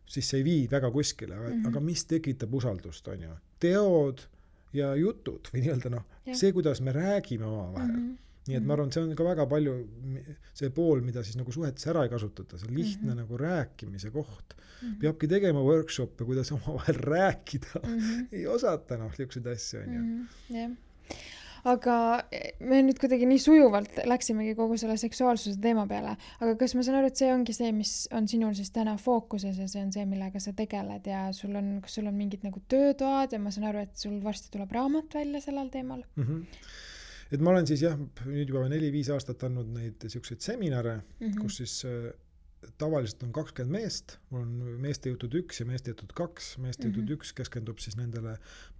see ei vii väga kuskile, aga mis tekitab usaldust, on ju? Teod ja jutud või nii-öelda see, kuidas me räägime omavahel. nii et ma arvan, see on ka väga palju see pool, mida siis nagu suhetes ära ei kasutata, see lihtne nagu rääkimise koht. Peabki tegema workshop'e, kuidas omavahel rääkida. Ei osata selliseid asju, on ju. Jah. Aga me nüüd kuidagi nii sujuvalt läksimegi kogu selle seksuaalsuse teema peale, aga kas ma saan aru, et see ongi see, mis on sinul siis täna fookuses ja see on see, millega sa tegeled ja kas sul on mingid nagu töötoad ja ma saan aru, et sul varsti tuleb raamat välja sellel teemal? Et ma olen siis nüüd juba 4-5 aastat andnud neid selliseid seminare, kus siis tavaliselt on 20 meest, mul on meeste jutud 1 ja meeste jutud 2. Meeste jutud 1 keskendub siis nendele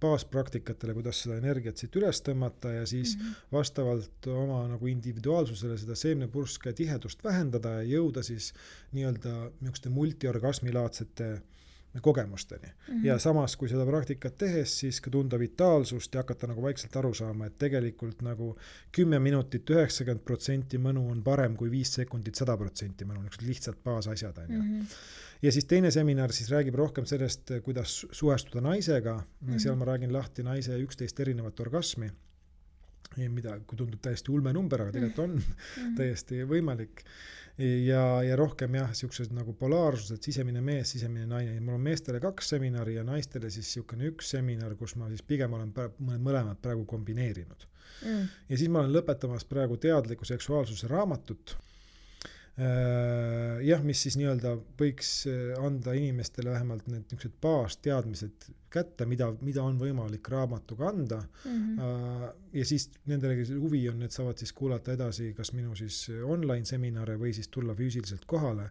baaspraktikatele, kuidas seda energiat siit üles tõmmata ja siis vastavalt oma nagu individuaalsusele seda seemnepurske tihedust vähendada ja jõuda siis nii-öelda niisuguste multiorgasmilaadsete kogemusteni. Ja samas, kui seda praktikat tehes, siis ka tunda vitaalsust ja hakata nagu vaikselt aru saama, et tegelikult nagu 10 minutit 90% mõnu on parem kui 5 sekundit 100% mõnu, lihtsalt baasasjad. Ja siis teine seminar siis räägib rohkem sellest, kuidas suhestuda naisega. Seal ma räägin lahti naise 11 erinevat orgasmi, mida kui tundub täiesti ulme number, aga tegelikult on täiesti võimalik. Ja rohkem siuksed nagu polaarsused, sisemine mees, sisemine naine. Mul on meestele 2 seminari ja naistele siis siukene 1 seminar, kus ma siis pigem olen mõlemad praegu kombineerinud. Ja siis ma olen lõpetamas praegu teadliku seksuaalsuse raamatut. Mis siis nii-öelda võiks anda inimestele vähemalt need niisugused baasteadmised kätte, mida on võimalik raamatuga anda. Ja siis nendele huvi on, et saavad siis kuulata edasi kas minu siis online seminare või siis tulla füüsiliselt kohale,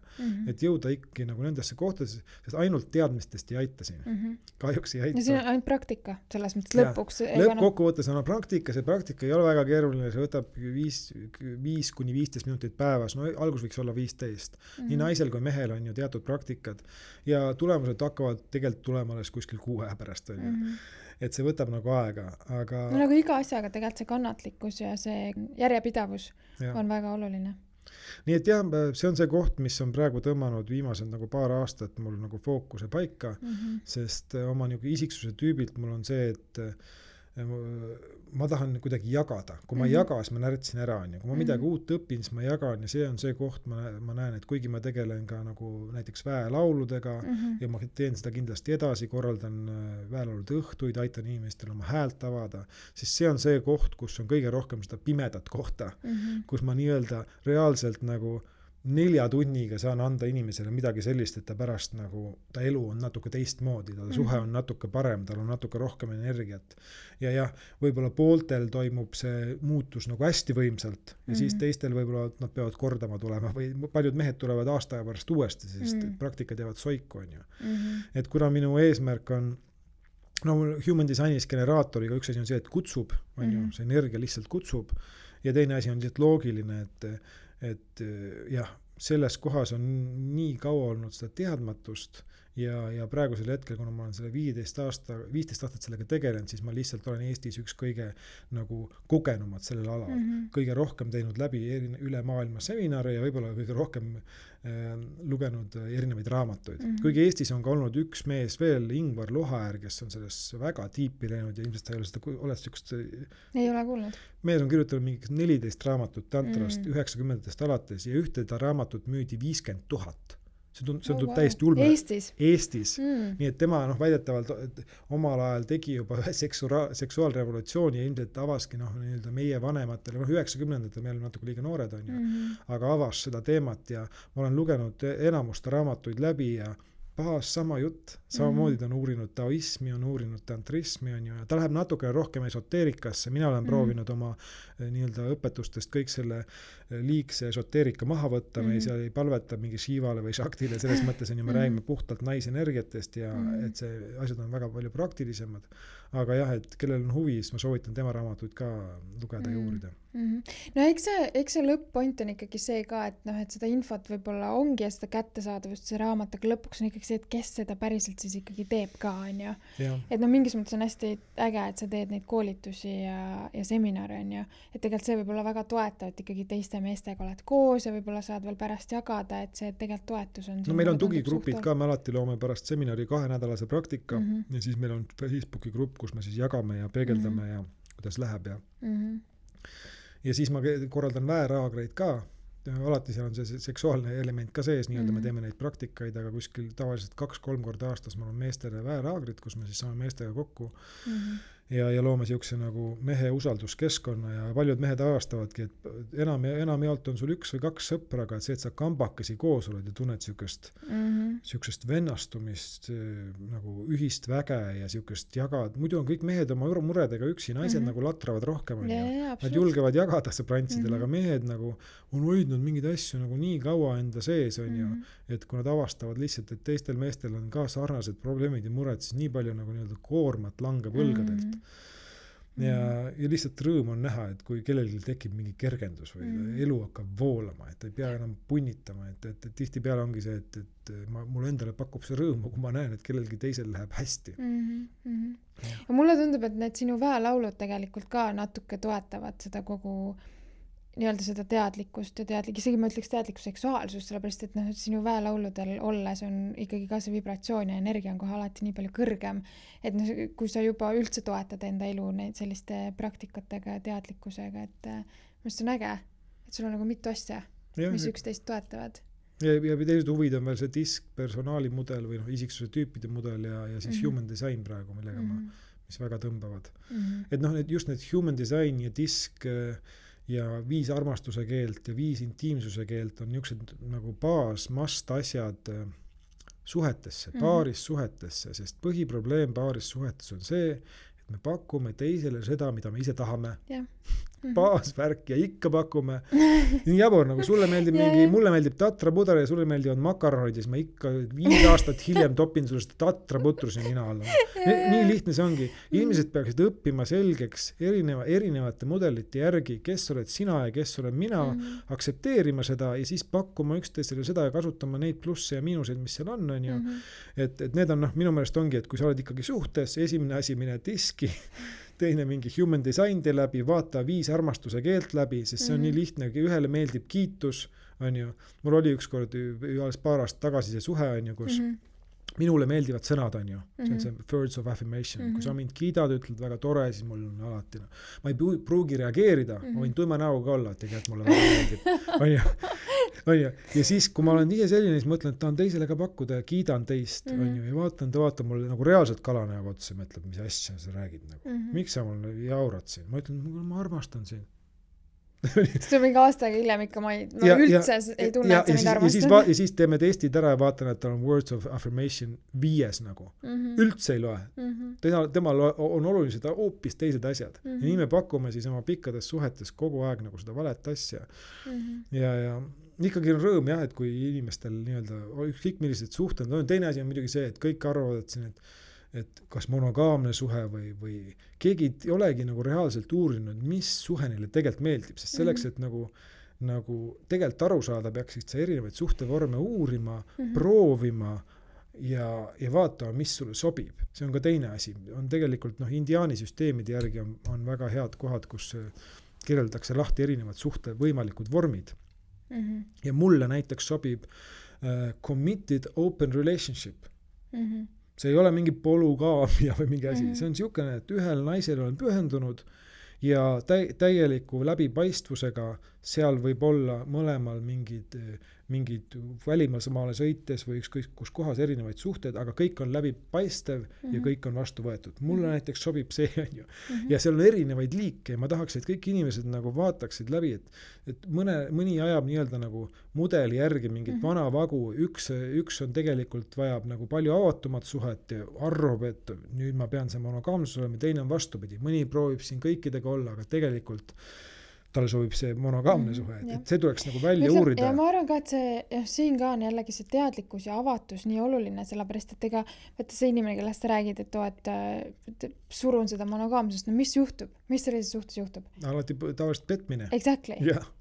et jõuda ikkagi nagu nendesse kohtadesse, sest ainult teadmistest ei aita siin. Kahjuks ei aita. Ja siin on ainult praktika, selles mõttes lõpuks. Lõppkokkuvõttes on praktika, see praktika ei ole väga keeruline, see võtab 5-15 minutit päevas, algus võiks olla 15. Nii naisel kui mehel on ju teatud praktikad ja tulemused hakkavad tegelikult tulema alles kuskil 6 pärast. Et see võtab nagu aega, aga... No nagu iga asjaga tegelikult see kannatlikkus ja see järjepidavus on väga oluline. Nii et see on see koht, mis on praegu tõmmanud viimased nagu paar aastat mul nagu fookuse paika, sest oma nagu isiksuse tüübilt mul on see, et ma tahan kuidagi jagada. Kui ma ei jaga, siis ma närtsin ära. Kui ma midagi uut õpin, siis ma jagan ja see on see koht, ma näen, et kuigi ma tegelen ka nagu näiteks väelauludega ja ma teen seda kindlasti edasi, korraldan väelaulude õhtuid, aitan inimestel oma häält avada, siis see on see koht, kus on kõige rohkem seda pimedat kohta, kus ma nii-öelda reaalselt nagu 4 tunniga saan anda inimesele midagi sellist, et ta pärast nagu, ta elu on natuke teistmoodi, ta suhe on natuke parem, tal on natuke rohkem energiat. Ja võib-olla pooltel toimub see muutus nagu hästi võimsalt ja siis teistel võib-olla nad peavad kordama tulema või paljud mehed tulevad aasta aja pärast uuesti, sest praktikad jäävad soiku, on ju. Et kuna minu eesmärk on human designis generaatoriga üks asi on see, et kutsub, on ju, see energia lihtsalt kutsub ja teine asi on lihtsalt loogiline, et selles kohas on nii kaua olnud seda teadmatust ja praegusel hetkel, kuna ma olen selle 15 aastat sellega tegelenud, siis ma lihtsalt olen Eestis üks kõige nagu kogenumad sellel alal. Kõige rohkem teinud läbi üle maailma seminare ja võib-olla kõige rohkem lugenud erinevaid raamatuid. Kuigi Eestis on ka olnud üks mees veel, Ingvar Lohaäär, kes on selles väga tiipi läinud ja ilmselt ta ei ole seda, oled siukest... Ei ole kuulnud. Mees on kirjutanud mingi 14 raamatut tantrast 90-ndast alates ja ühte ta raamatut müüdi 50 000. See tundub täiesti ulme. Eestis. Nii et tema väidetavalt omal ajal tegi juba seksuaalrevolutsiooni ja ilmselt avaski nii-öelda meie vanematele, 90-ndatel meil on natuke liiga noored on ju, aga avas seda teemat ja ma olen lugenud enamusta raamatuid läbi ja sama jutt, samamoodi ta on uurinud taoismi, on uurinud tantrismi, on ju, ja ta läheb natukene rohkem esoteerikasse, mina olen proovinud oma nii-öelda õpetustest kõik selle liigse esoteerika maha võtta, me ei palveta mingi Shivale või Shaktile, selles mõttes on ju, me räägime puhtalt naisenergiatest ja et see asjad on väga palju praktilisemad, aga jah, et kellel on huvi, siis ma soovitan tema raamatuid ka lugeda ja uurida. No eks see lõpp-point on ikkagi see ka, et seda infot võib-olla ongi ja seda kättesaadavust see raamat, aga lõpuks on ikkagi see, et kes seda päriselt siis ikkagi teeb ka, on ju. Et mingis mõttes on hästi äge, et sa teed neid koolitusi ja seminare, on ju. Et tegelikult see võib olla väga toetav, et ikkagi teiste meestega oled koos ja võib-olla saad veel pärast jagada, et see tegelikult toetus on. No meil on tugigrupid ka, me alati loome pärast seminari 2-nädalase praktika ja siis meil on Facebooki grupp, kus me siis jagame ja peegeldame ja kuidas läheb ja ja siis ma korraldan väeraagreid ka, alati seal on see seksuaalne element ka sees, nii-öelda me teeme neid praktikaid, aga kuskil tavaliselt 2-3 korda aastas mul on meestele väeraagrid, kus me siis saame meestega kokku ja loome siukse nagu mehe usalduskeskkonna ja paljud mehed avastavadki, et enamjaolt on sul 1 või 2 sõpra, aga et see, et sa kambakesi koos oled ja tunned siukest vennastumist, nagu ühist väge ja siukest jagad, muidu on kõik mehed oma muredega üksi, naised nagu latravad rohkem, nad julgevad jagada sõbrantsidele, aga mehed nagu on hoidnud mingeid asju nagu nii kaua enda sees, on ju, et kui nad avastavad lihtsalt, et teistel meestel on ka sarnased probleemid ja mured, siis nii palju nagu nii-öelda koormat langeb õlgadelt. Ja lihtsalt rõõm on näha, et kui kellelgi tekib mingi kergendus või elu hakkab voolama, et ei pea enam punnitama, et tihti peale ongi see, et mulle endale pakub see rõõmu, kui ma näen, et kellelgi teisel läheb hästi. Ja mulle tundub, et need sinu väelaulud tegelikult ka natuke toetavad seda kogu nii-öelda seda teadlikkust ja isegi ma ütleks teadlikku seksuaalsust, sellepärast, et sinu väelauludel olles on ikkagi ka see vibratsioon ja energia on kohe alati nii palju kõrgem, et kui sa juba üldse toetad enda elu neid selliste praktikatega ja teadlikkusega, et mõnest on äge, et sul on nagu mitu asja, mis üksteist toetavad. Ja teised huvid on veel see disk, personaali mudel või isiksuse tüüpide mudel ja siis human design praegu, millega mis väga tõmbavad. Et just need human design ja disk ja 5 armastuse keelt ja 5 intiimsuse keelt on niisugused nagu must asjad suhetesse, paaris suhetesse, sest põhiprobleem paaris suhetes on see, et me pakume teisele seda, mida me ise tahame. Baasvärk ja ikka pakume. Nii jabur, nagu sulle meeldib mulle meeldib tatrapuder ja sulle meeldivad makaronid ja siis ma ikka 5 aastat hiljem topin sulle seda tatraputrus ja nina alla. Nii lihtne see ongi. Inimesed peaksid õppima selgeks erinevate mudelite järgi, kes oled sina ja kes olen mina, aksepteerima seda ja siis pakkuma üksteisele seda ja kasutama neid plusse ja miinuseid, mis seal on ju. Et need on minu meelest ongi, et kui sa oled ikkagi suhtes, esimene asi mine diski, teine mingi human design tee läbi, vaata 5 armastuse keelt läbi, sest see on nii lihtne, ühele meeldib kiitus, on ju. Mul oli ükskord alles paar aastat tagasi see suhe, on ju, kus minule meeldivad sõnad, on ju. See on see words of affirmation. Kui sa mind kiidad, ütled väga tore, siis mul on alati. Ma ei pruugi reageerida, ma võin tuima näoga olla, et tegelikult mulle väga meeldib. On ju. Ja siis, kui ma olen ise selline, siis mõtlen, et tahan teisele ka pakkuda ja kiidan teist, on ju. Ja vaatan, ta vaatab mulle nagu reaalselt kalanäoga otsa ja mõtleb, mis asja sa räägid. Miks sa mulle jaurad siin? Ma ütlen, ma armastan sind. See on mingi aastaga hiljem ikka ma üldse ei tunne, et sa mind armastan. Ja siis teeme testid ära ja vaatan, et tal on words of affirmation 5 nagu. Üldse ei loe. Temal on olulised hoopis teised asjad. Ja nii me pakume siis oma pikkades suhetes kogu aeg nagu seda valet asja. Ja ikkagi on rõõm jah, et kui inimestel nii-öelda kõik millised suhted on. Teine asi on muidugi see, et kõik arvavad, et siin, et kas monogaamne suhe või keegi ei olegi nagu reaalselt uurinud, mis suhe neile tegelikult meeldib, sest selleks, et nagu tegelikult aru saada, peaksid sa erinevaid suhtevorme uurima, proovima ja vaatama, mis sulle sobib. See on ka teine asi. On tegelikult indiaani süsteemide järgi on väga head kohad, kus kirjeldatakse lahti erinevad suhte võimalikud vormid. Ja mulle näiteks sobib committed open relationship. See ei ole mingi polügaamia või mingi asi. See on niisugune, et ühel naisel olen pühendunud ja täieliku läbipaistvusega seal võib olla mõlemal mingid välimaale sõites või ükskõik kus kohas erinevaid suhteid, aga kõik on läbipaistev ja kõik on vastu võetud. Mulle näiteks sobib see, on ju. Ja seal on erinevaid liike ja ma tahaks, et kõik inimesed nagu vaataksid läbi, et mõni ajab nii-öelda nagu mudeli järgi mingit vana vagu, üks on tegelikult vajab nagu palju avatumat suhet ja arvab, et nüüd ma pean see monogaamsus olema, teine on vastupidi. Mõni proovib siin kõikidega olla, aga tegelikult tal sobib see monogaamne suhe, et see tuleks nagu välja uurida. Ja ma arvan ka, et siin ka on jällegi see teadlikkus ja avatus nii oluline, sellepärast, et võtta see inimene, kellest sa räägid, et surun seda monogaamsust, mis juhtub? Mis sellises suhtes juhtub? Alati tavaliselt petmine. Exactly.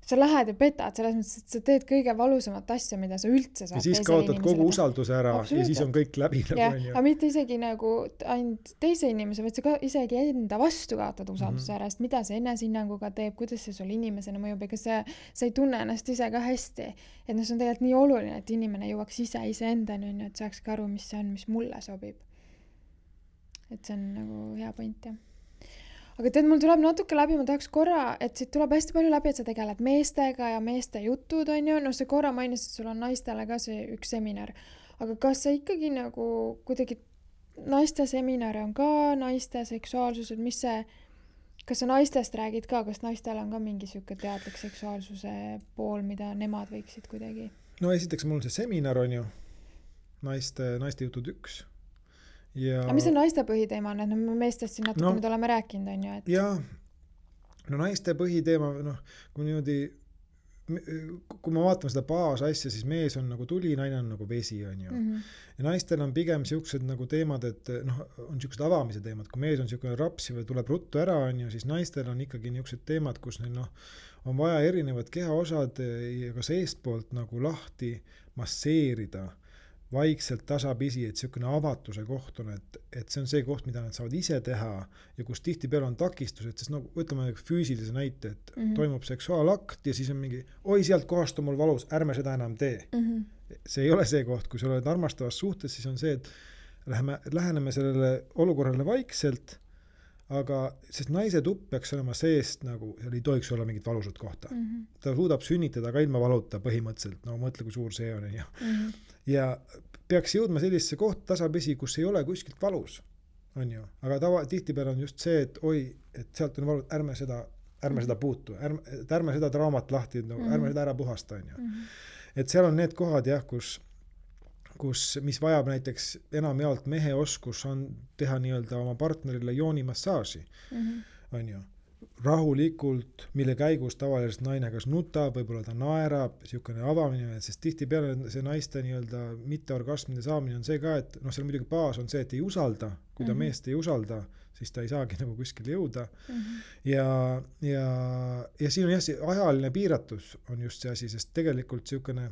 Sa lähed ja petad, selles mõttes, et sa teed kõige valusamat asja, mida sa üldse saad. Ja siis kaotad kogu usalduse ära ja siis on kõik läbi. Aga mitte isegi nagu ainult teise inimese, vaid sa ka isegi enda vastu kaotad usalduse ära, sest mida see enesehinnanguga teeb, kuidas see sul inimesena mõjub, ega sa ei tunne ennast ise ka hästi. Et see on tegelikult nii oluline, et inimene jõuaks iseendani, et saaks ka aru, mis see on, mis mulle sobib. Et see on nagu hea point, jah. aga tead, mul tuleb natuke läbi, ma tahaks korra, et siit tuleb hästi palju läbi, et sa tegeled meestega ja meeste jutud, on ju, no see korra mainis, et sul on naistele ka see üks seminar, aga kas sa ikkagi nagu kuidagi naiste seminare on ka, naiste seksuaalsused, mis see, kas sa naistest räägid ka, kas naistel on ka mingi siuke teadlik seksuaalsuse pool, mida nemad võiksid kuidagi? No esiteks mul on see seminar on ju, naiste jutud 1. Ja... Aga mis on naiste põhiteema on, et me meestest siin natuke mida oleme rääkinud, on ju? Et... Jaa, no naiste põhiteema, kui niimoodi, kui ma vaatame seda baasasja, siis mees on nagu tuli, naine on nagu vesi, on ju. Ja naistel on pigem siuksed nagu teemad, et on siuksed avamise teemad, kui mees on siukene rapsi või tuleb ruttu ära, on ju, siis naistel on ikkagi niuksed teemad, kus neil on vaja erinevad kehaosad ka seestpoolt nagu lahti masseerida vaikselt tasapisi, et siukene avatuse koht on, et see on see koht, mida nad saavad ise teha ja kus tihtipeale on takistused, sest võtame füüsilise näite, et toimub seksuaalakt ja siis on mingi, oi sealt kohast on mul valus, ärme seda enam tee. See ei ole see koht, kui sa oled armastavas suhtes, siis on see, et läheneme sellele olukorrale vaikselt, aga sest naise tupp peaks olema seest nagu, seal ei tohiks olla mingit valusat kohta. Ta suudab sünnitada ka ilma valuta põhimõtteliselt, no mõtle, kui suur see on. Ja peaks jõudma sellisesse kohta tasapisi, kus ei ole kuskilt valus, on ju. Aga tihtipeale on just see, et oi, et sealt on valus, ärme seda puutu, ärme seda traumat lahti, ärme seda ära puhasta, on ju. Et seal on need kohad, jah, mis vajab näiteks enamjaolt mehe oskus on teha nii-öelda oma partnerile joonimassaaži, on ju. Rahulikult, mille käigus tavaliselt naine kas nutab, võib-olla ta naerab, siukene avamine, sest tihtipeale see naiste nii-öelda mitteorgasmide saamine on see ka, et seal muidugi baas on see, et ei usalda, kui ta meest ei usalda, siis ta ei saagi nagu kuskil jõuda. Ja siin on jah, see ajaline piiratus on just see asi, sest tegelikult siukene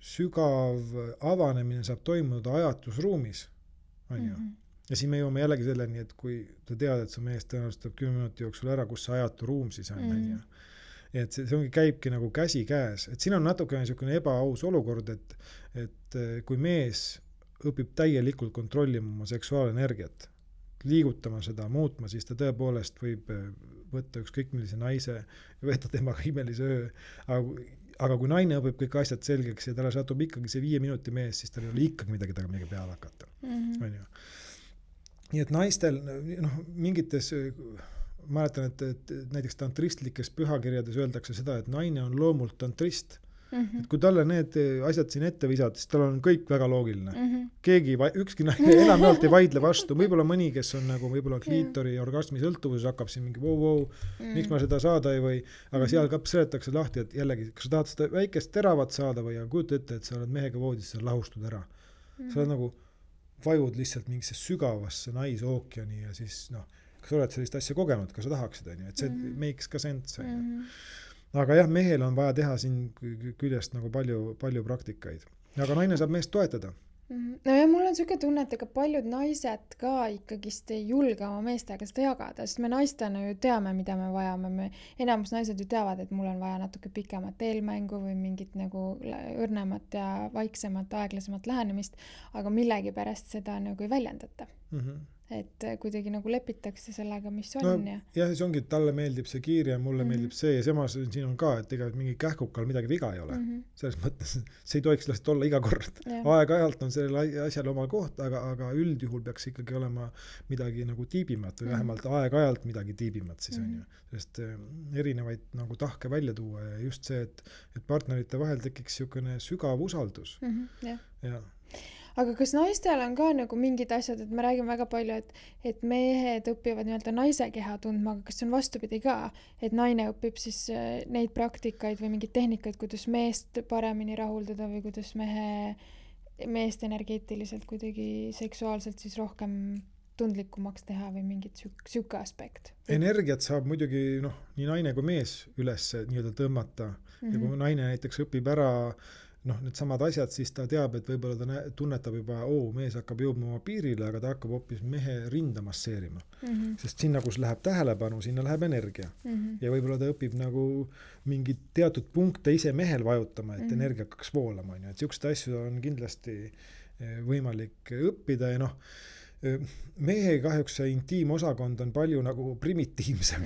sügav avanemine saab toimuda ajatusruumis, on ju. Ja siin me jõuame jällegi selleni, et kui ta tead, et su mees tõenäoliselt tuleb 10 minuti jooksul ära, kus see ajatu ruum siis on, on ju. Et see ongi, käibki nagu käsi käes. Et siin on natuke niisugune ebaaus olukord, et kui mees õpib täielikult kontrollima oma seksuaalenergiat, liigutama seda, muutma, siis ta tõepoolest võib võtta ükskõik millise naise ja võtta temaga imelise öö. Aga kui naine õpib kõik asjad selgeks ja talle satub ikkagi see 5 minuti mees, siis tal ei ole ikkagi midagi peale hakata. On ju. Nii et naistel, mingites, mäletan, et näiteks tantristlikes pühakirjades öeldakse seda, et naine on loomult tantrist. Et kui talle need asjad siin ette visad, siis tal on kõik väga loogiline. Ükski naine enamjaolt ei vaidle vastu. Võib-olla mõni, kes on nagu võib-olla kliitori orgasmi sõltuvuses, hakkab siin mingi miks ma seda saada ei või, aga seal ka seletakse lahti, et jällegi, kas sa tahad seda väikest teravat saada või kujuta ette, et sa oled mehega voodis, sa lahustud ära. Sa oled nagu vajud lihtsalt mingisse sügavasse naisookeani ja siis kas sa oled sellist asja kogenud, kas sa tahaksid, et see makes ka sense. Aga jah, mehel on vaja teha siin küljest nagu palju praktikaid. Aga naine saab meest toetada. No ja mul on siuke tunne, et ega paljud naised ka ikkagist ei julge oma meestega seda jagada, sest me naistena ju teame, mida me vajame. Enamus naised ju teavad, et mul on vaja natuke pikemat eelmängu või mingit nagu õrnemat ja vaiksemat, aeglasemat lähenemist, aga millegi pärast seda nagu ei väljendata. Et kuidagi nagu lepitakse sellega, mis on. Ja see ongi, et talle meeldib see kiir ja mulle meeldib see ja samas siin on ka, et ega mingi kähkukal midagi viga ei ole. Selles mõttes, see ei tohiks lihtsalt olla iga kord. Aeg-ajalt on sellel asjal oma koht, aga üldjuhul peaks ikkagi olema midagi nagu tiibimat või vähemalt aeg-ajalt midagi tiibimat siis on ju. Sest erinevaid nagu tahke välja tuua ja just see, et partnerite vahel tekiks siukene sügav usaldus. Ja. Aga kas naistel on ka nagu mingid asjad, et me räägime väga palju, et mehed õpivad nii-öelda naise keha tundma, aga kas see on vastupidi ka, et naine õpib siis neid praktikaid või mingeid tehnikaid, kuidas meest paremini rahuldada või kuidas meest energeetiliselt kuidagi seksuaalselt siis rohkem tundlikumaks teha või mingit siuke aspekt? Energiat saab muidugi nii naine kui mees üles nii-öelda tõmmata ja kui naine näiteks õpib ära need samad asjad, siis ta teab, et võib-olla ta tunnetab juba, mees hakkab jõudma oma piirile, aga ta hakkab hoopis mehe rinda masseerima. Sest sinna, kus läheb tähelepanu, sinna läheb energia. Ja võib-olla ta õpib nagu mingid teatud punkte ise mehel vajutama, et energia hakkaks voolama. Et siuksed asju on kindlasti võimalik õppida ja mehe kahjuks see intiimosakond on palju nagu primitiivsem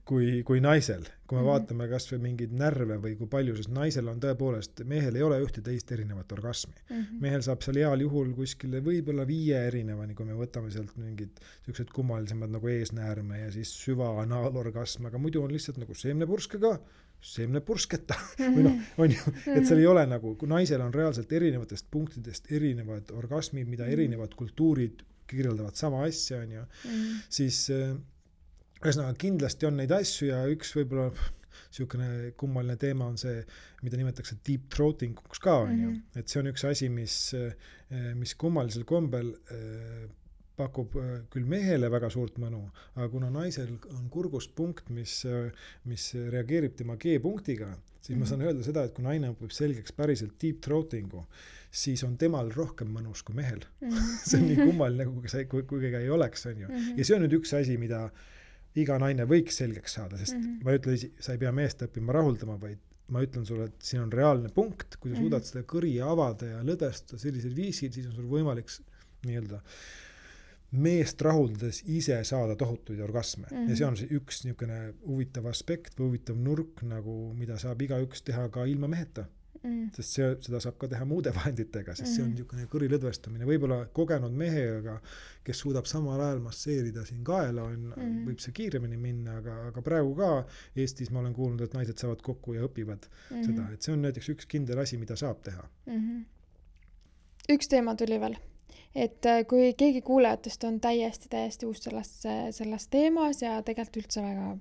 kui naisel. Kui me vaatame kas või mingeid närve või kui palju, sest naisel on tõepoolest, mehel ei ole ühte teist erinevat orgasmi. Mehel saab seal heal juhul kuskile võib-olla 5 erinevani, kui me võtame sealt mingid sellised kummalisemad nagu eesnäärme ja siis süva anaalorgasm, aga muidu on lihtsalt nagu seemnepurskega, seemnepursketa või noh, on ju, et seal ei ole nagu, kui naisel on reaalselt erinevatest punktidest erinevad orgasmid, mida erinevad kultuurid kirjeldavad sama asja, on ju, siis ühesõnaga kindlasti on neid asju ja üks võib-olla niisugune kummaline teema on see, mida nimetatakse deep throating ka, on ju, et see on üks asi, mis kummalisel kombel pakub küll mehele väga suurt mõnu, aga kuna naisel on kurgust punkt, mis reageerib tema G-punktiga, siis ma saan öelda seda, et kui naine õpib selgeks päriselt deep throatingu, siis on temal rohkem mõnus kui mehel. See on nii kummaline, kui keegi ei oleks, on ju. Ja see on nüüd üks asi, mida iga naine võiks selgeks saada, sest ma ütlen, sa ei pea meest õppima rahuldama, vaid ma ütlen sulle, et siin on reaalne punkt, kui sa suudad seda kõri avada ja lõdestada sellisel viisil, siis on sul võimalik nii-öelda meest rahuldades ise saada tohutuid orgasme. Ja see on üks niisugune huvitav aspekt või huvitav nurk, nagu, mida saab igaüks teha ka ilma meheta. Sest seda saab ka teha muude vahenditega, sest see on niisugune kõri lõdvestamine. Võib-olla kogenud mehega, kes suudab samal ajal masseerida siin kaela, võib see kiiremini minna, aga praegu ka Eestis ma olen kuulnud, et naised saavad kokku ja õpivad seda. Et see on näiteks üks kindel asi, mida saab teha. Üks teema tuli veel. Et kui keegi kuulajatest on täiesti uus selles teemas ja tegelikult üldse väga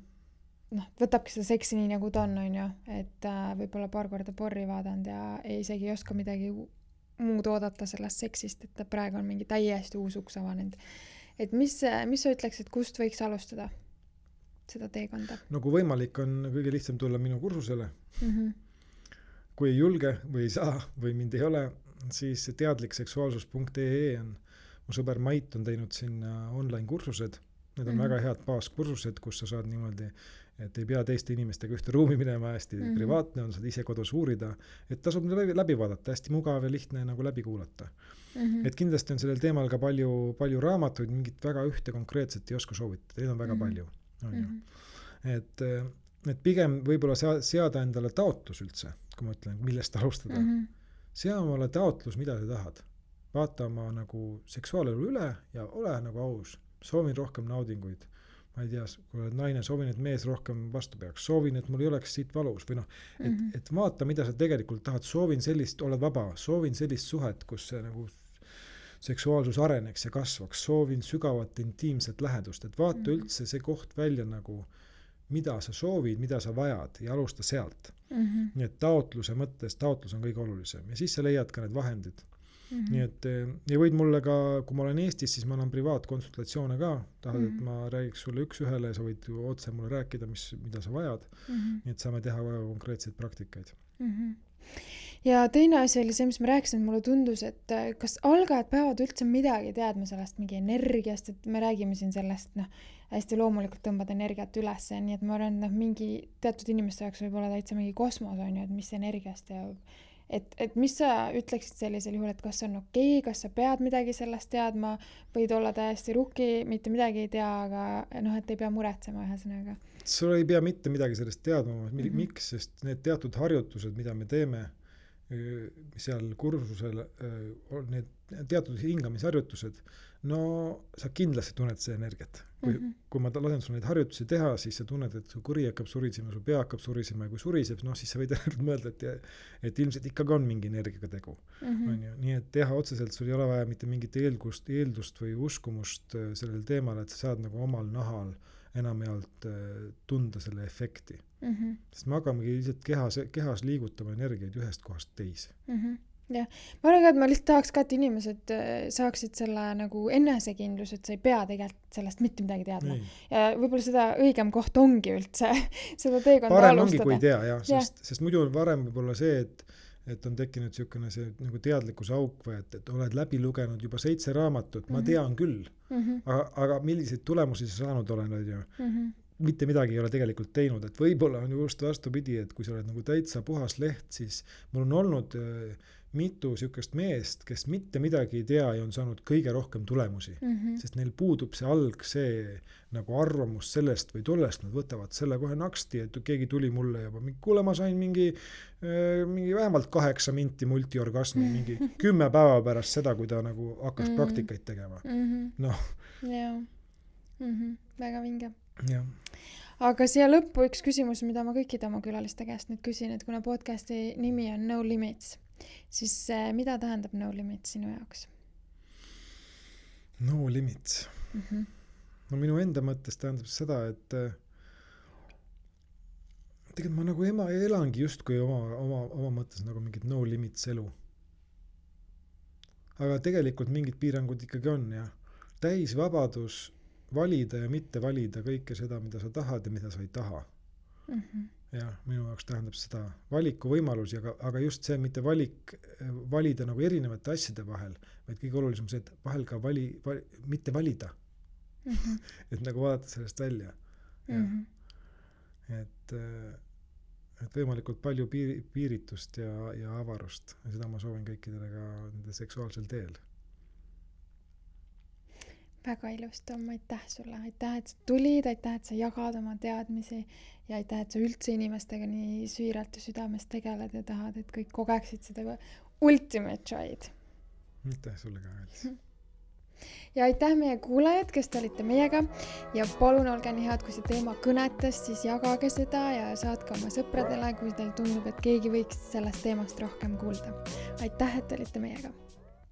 võtabki seda seksi nii nagu ta on ju, et võib-olla paar korda porri vaadanud ja isegi ei oska midagi muud oodata sellest seksist, et praegu on mingi täiesti uus uks avanenud. Et mis sa ütleks, et kust võiks alustada seda teekonda? No kui võimalik on kõige lihtsam tulla minu kursusele. Kui ei julge või ei saa või mind ei ole, siis teadlikseksuaalsus.ee on mu sõber Mait on teinud sinna online kursused. Need on väga head baaskursused, kus sa saad niimoodi, et ei pea teiste inimestega ühte ruumi minema, hästi privaatne on, saad ise kodus uurida, et tasub läbi vaadata, hästi mugav ja lihtne nagu läbi kuulata. Et kindlasti on sellel teemal ka palju raamatuid, mingit väga ühte konkreetset ei oska soovitada, neid on väga palju. On ju. Et pigem võib-olla seada endale taotlus üldse, kui ma ütlen, millest alustada. Sea omale taotlus, mida sa tahad. Vaata oma nagu seksuaalelu üle ja ole nagu aus. Soovin rohkem naudinguid. Ma ei tea, kui oled naine, soovin, et mees rohkem vastu peaks. Soovin, et mul ei oleks siit valus. Või et vaata, mida sa tegelikult tahad. Soovin sellist, oled vaba. Soovin sellist suhet, kus see nagu seksuaalsus areneks ja kasvaks. Soovin sügavat intiimset lähedust. Et vaata üldse see koht välja nagu, mida sa soovid, mida sa vajad ja alusta sealt. Nii et taotlus on kõige olulisem. Ja siis sa leiad ka need vahendid. Nii et ja võid mulle ka, kui ma olen Eestis, siis ma annan privaatkonsultatsioone ka. Tahad, et ma räägiks sulle üks ühele ja sa võid ju otse mulle rääkida, mida sa vajad. Nii et saame teha väga konkreetseid praktikaid. Ja teine asi oli see, mis ma rääkisin, et mulle tundus, et kas algajad peavad üldse midagi teadma sellest mingi energiast, et me räägime siin sellest, hästi loomulikult tõmbad energiat üles, nii et ma arvan, et mingi teatud inimeste jaoks võib olla täitsa mingi kosmos on ju, et mis energiast ja et mis sa ütleksid sellisel juhul, et kas on okei, kas sa pead midagi sellest teadma, võid olla täiesti rukki, mitte midagi ei tea, aga et ei pea muretsema ühesõnaga. Sul ei pea mitte midagi sellest teadma, miks, sest need teatud harjutused, mida me teeme seal kursusel, need teatud hingamisharjutused, no sa kindlasti tunned see energiat. Kui ma lasen sul neid harjutusi teha, siis sa tunned, et su kõri hakkab surisema, su pea hakkab surisema ja kui suriseb, siis sa võid mõelda, et ilmselt ikkagi on mingi energiaga tegu. Nii et teha otseselt, sul ei ole vaja mitte mingit eeldust või uskumust sellel teemal, et sa saad nagu omal nahal enamjaolt tunda selle efekti. Sest me hakkamegi lihtsalt kehas liigutama energiaid ühest kohast teise. Ja. Ma arvan ka, et ma lihtsalt tahaks ka, et inimesed saaksid selle nagu enesekindlus, et sa ei pea tegelikult sellest mitte midagi teadma. Ja võib-olla seda õigem koht ongi üldse seda teekonda parem alustada. Parem ongi, kui tea, jah. Sest muidu on varem võib-olla see, et on tekkinud niisugune see nagu teadlikkuse auk või et oled läbi lugenud juba 7 raamatut, ma tean küll. Aga milliseid tulemusi sa saanud olen, mitte midagi ei ole tegelikult teinud, et võib-olla on just vastupidi, et kui sa oled nagu täitsa puhas leht, siis mul on olnud mitu sihukest meest, kes mitte midagi ei tea ja on saanud kõige rohkem tulemusi. Sest neil puudub see nagu arvamus sellest või tollest, nad võtavad selle kohe naksti, et keegi tuli mulle juba, kuule, ma sain mingi vähemalt 8 minti multiorgasmi, mingi 10 päeva pärast seda, kui ta nagu hakkas praktikaid tegema. Noh. Jaa. Väga vinge. Jah. Aga siia lõppu üks küsimus, mida ma kõikide oma külaliste käest nüüd küsin, et kuna podcasti nimi on No Limits, siis mida tähendab No Limits sinu jaoks? No Limits. No minu enda mõttes tähendab seda, et tegelikult ma nagu elangi justkui oma mõttes nagu mingit No Limits elu. Aga tegelikult mingid piirangud ikkagi on ja täis vabadus valida ja mitte valida kõike seda, mida sa tahad ja mida sa ei taha. Ja minu jaoks tähendab seda valiku võimalusi, aga just see mitte valida nagu erinevate asjade vahel, vaid kõige olulisem see, et vahel ka mitte valida. Et nagu vaadata sellest välja. Et võimalikult palju piiritust ja avarust. Ja seda ma soovin kõikidele ka nende seksuaalsel teel. Väga ilus, Tom, aitäh sulle. Aitäh, et sa tulid, aitäh, et sa jagad oma teadmisi ja aitäh, et sa üldse inimestega nii süüralt ja südames tegeled ja tahad, et kõik kogeksid seda ultimate joy'd. Aitäh sulle ka, Alice. Ja aitäh meie kuulajad, kes te olite meiega ja palun olge nii head, kui see teema kõnetas, siis jagage seda ja saatke oma sõpradele, kui teil tundub, et keegi võiks sellest teemast rohkem kuulda. Aitäh, et olite meiega.